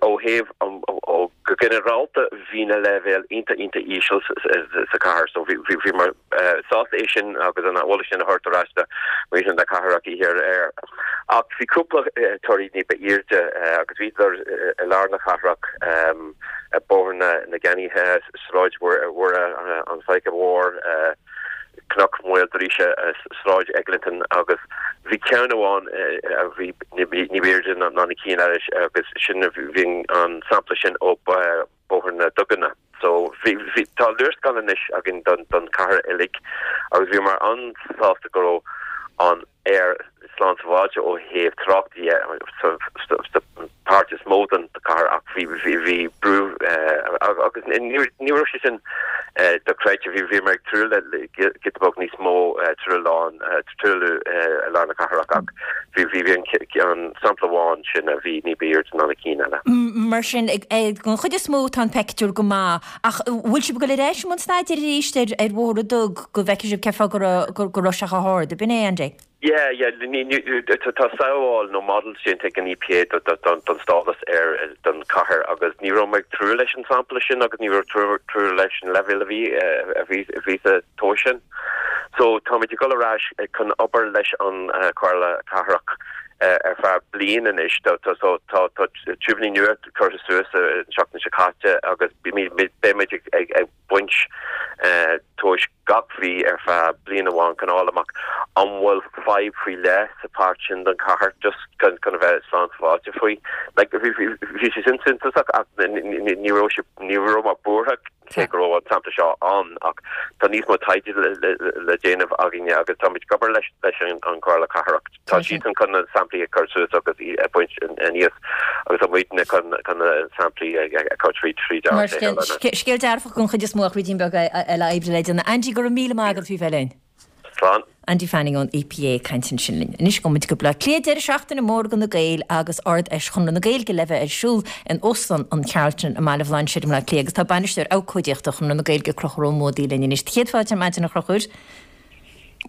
ó thaobh ó go ginearálta bhí na leibhéil iontach iontach íseal sa chathair so bhíomar sásta é sin agus an eolas sin a thabhairt ar ais do mhuintir na cathrach oíche aréir. Ach bhí cúpla torthaí ní ba airde agus bhíodar i lár na cathrach, Bóthar na gCeannaithe, Sráid Mhuire, an Faiche Mhór, Cnoc Mhaoildríse, Sráid Eglinton agus bhí ceann amháin a bhí ní ba airde ná na cinn eile agus sin bhí an sampla sin ó Bóthar na Duganna. So bhí, bhí, tá léarscáil anois againn don, don chathair uilig agus bhíomar an-sásta go raibh an aer slán sábháilte ó thaobh trácht dhe sa, sa, sa páirt is mó den chathair ach bhí, bhí, bhí brú agus ní, ní raibh sé sin dochreidte. Bhí, bhíomar ag súil le giota beag níos mó truailleán, truailliú i lár na cathrach ach bhí, bhí, bhí an, an sampla amháin sin a bhí ní ba airde ná na cinn eile. Mar sin, den chuid is mó tá an peictiúr go maith ach bhfuil sibh ag dul ar ais i mbun staidéir arís ar ar Bhóthar na dTug go bhfeicfidh sibh cén fáth go raibh go raibh sé chomh hard, ab in é, Andy? Yeah, yeah, ní, ní, tá samhail nó models déanta ag an EPA do, do, don, don stádas aeir don chathair agus ní raibh mé ag tnúth leis an sampla sin agus ní raibh tnúth leis an leibhéal a bhí, a bhí, a bhí sa tomhas sin. So táimid ag dul ar ais chun obair leis an Chomhairle Cathrach ar feadh bliain anois. So tá tá tiúibíní nua curtha suas an tseachtain seo caite agus beimid ag baint tomhais gach mhí ar feadh bliain amháin chun fháil amach an bhfuil fadhb faoi leith sa pháirt sin den chathair just chun a bheith slán sábháilte faoi. Like bhí sé sin suntasach ach ní raibh sé ní raibh mé buartha Cé go raibh an sampla seo ann ach tá níos mó taighde le déanamh againne agus táimid ag obair leis an Chomhairle Cathrach. Tá siadsan chun na samplaí a chur suas agus a bhaint aníos agus tá muidne chun na samplaí a chur tríd tríd Mar sin, scéal dearfach den chuid is mó ach ruidín beag eile oibre le déanamh. Andy, go raibh míle maith agat faoi bheith linn. Slán. Andy Fanning ón EPA ag caint ansin linn. Anois gabhfaidh muid go Baile Átha Cliath, deireadh seachtaine mór do na Gaeil agus Ard-Fheis Chonradh na Gaeilge le bheith ar siúl in Óstán an Charlton i mBaile Bhlainséir i mBleá Cliath agus tá Bainisteoir Abhcóideachta Chonradh na Gaeilge Conchúr Ó Muadaigh linn anois. Do chéad fáilte ar maidin a Chonchúir.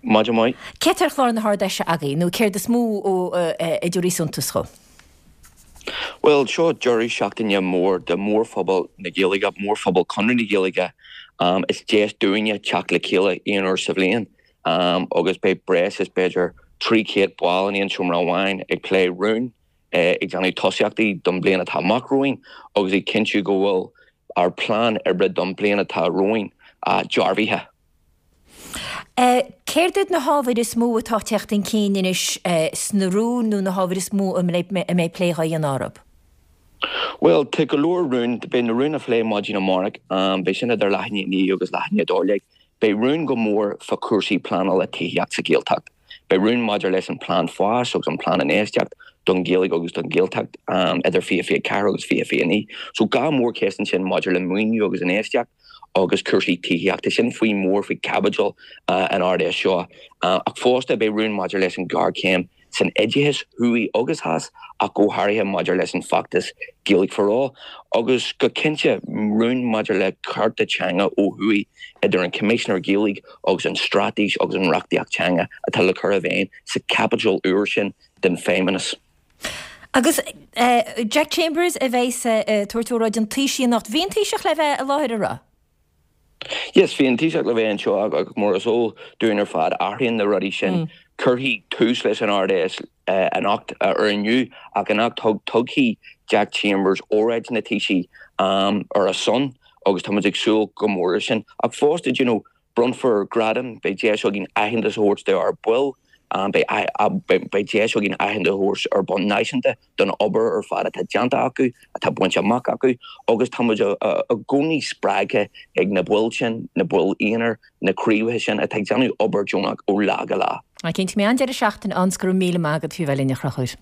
Maidin mhaith. Céard tá ar chlár na hArd-Fheise agaibh nó céard is mó a dtabharfaidh suntas dhó? Bhuel, seo deireadh seachtaine mór do mhórphobal na Gaeilge, mórphobal Chonradh na Gaeilge. Is deis dúinne teacht le chéile aon uair sa bhliain agus beidh breis is b'fhéidir 300 ball in aon seomra amháin ag plé rún, ag déanamh tosaíochtaí don bhliain atá amach romhainn agus ag cinntiú go bhfuil ár bplean oibre don bhliain atá romhainn dearbhaithe. Céard iad na hábhair is mó atá ag teacht chun cinn anois sna rúin nó na hábhair is mó a mbeidh plé á dhéanamh orthu? Bhuel, tá go leor rún. Beidh na rúin á phlé maidin amárach. Beidh sin idir leath i ndiaidh a 9 agus leath i ndiaidh 12. Beidh rún go mór fá chúrsaí pleanála tithíocht sa Ghaeltacht. Beidh rún maidir leis an plean fáis agus an plean infheistíocht don Ghaeilge agus don Ghaeltacht idir 2024 agus 2029. So dhá mhórcheist ansin maidir le maoiniú agus infheistíocht. agus cúrsaí tithíochta. Sin faoi mór faoi chaibidil an Ard-Fheis seo. Ach fosta beidh rún maidir leis an ghéarchéim san oideachas, thuaidh agus theas, ach go háirithe maidir leis an bhfeachtas Gaeilge for All, agus go cinnte rún maidir le cearta teanga ó thuaidh idir an Coimisinéir Gaeilge agus an straitéis agus an reachtaíocht teanga atá le cur i bhfeidhm sa chaibidil úr sin den Feidhmeannas. Agus Jack Chambers a bheas ag tabhairt óráid an Taoisigh anocht. Bhí an Taoiseach le bheith i láthair, an raibh? Yes, bhí an Taoiseach le bheith anseo ach mar is eol dúinn ar fad, athraíonn na rudaí sin. Cuirfidh tús leis an Ard-Fheis anocht, ar inniu, ach anocht tugfaidh Jack Chambers óráid na Taoisigh ar a son agus tá muid ag súil go mór leis sin. Ach fosta, do you know, Bronnfar gradaim, beidh deis againn aitheantas a thabhairt dár baill, beidh deis againn aitheantas a thabhairt ar bhonn náisiúnta don obair ar fad atá déanta acu, atá bainte amach acu agus tá muid i gcónaí spreagtha ag na baill sin, na baill aonair, na craobhacha sin atá ag déanamh obair deonach ó lá go lá. Cinnte, beidh an-deireadh seachtaine ann 's go raibh míle maith agat faoi bheith linn a Chonchúir.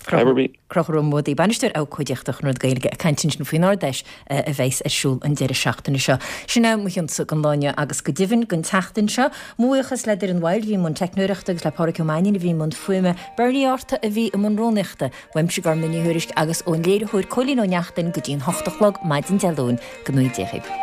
Conchúr Ó Muadaigh, Bainisteoir Abhcóideachta Chonradh na Gaeilge ag caint ansin faoin Ard-Fheis a bheas ar siúl an deireadh seachtaine seo. Sin é mo chionsa don lá inniu agus go deimhin don tseachtain seo. Mo bhuíochas le Doireann Wild a bhí i mbun teicneoireachta agus le Pádhraic Ó Mainnín a bhí i mbun fuaime, Bernie Arta a bhí i mbun rúnaíochta, uaimse Gormfhlaith Ní Thuairisg agus ón léiritheoir Cóilín Ó Neachtain go dtí an hocht a chlog maidin Dé Luain. Go ngnóthaí Dia dhaoibh.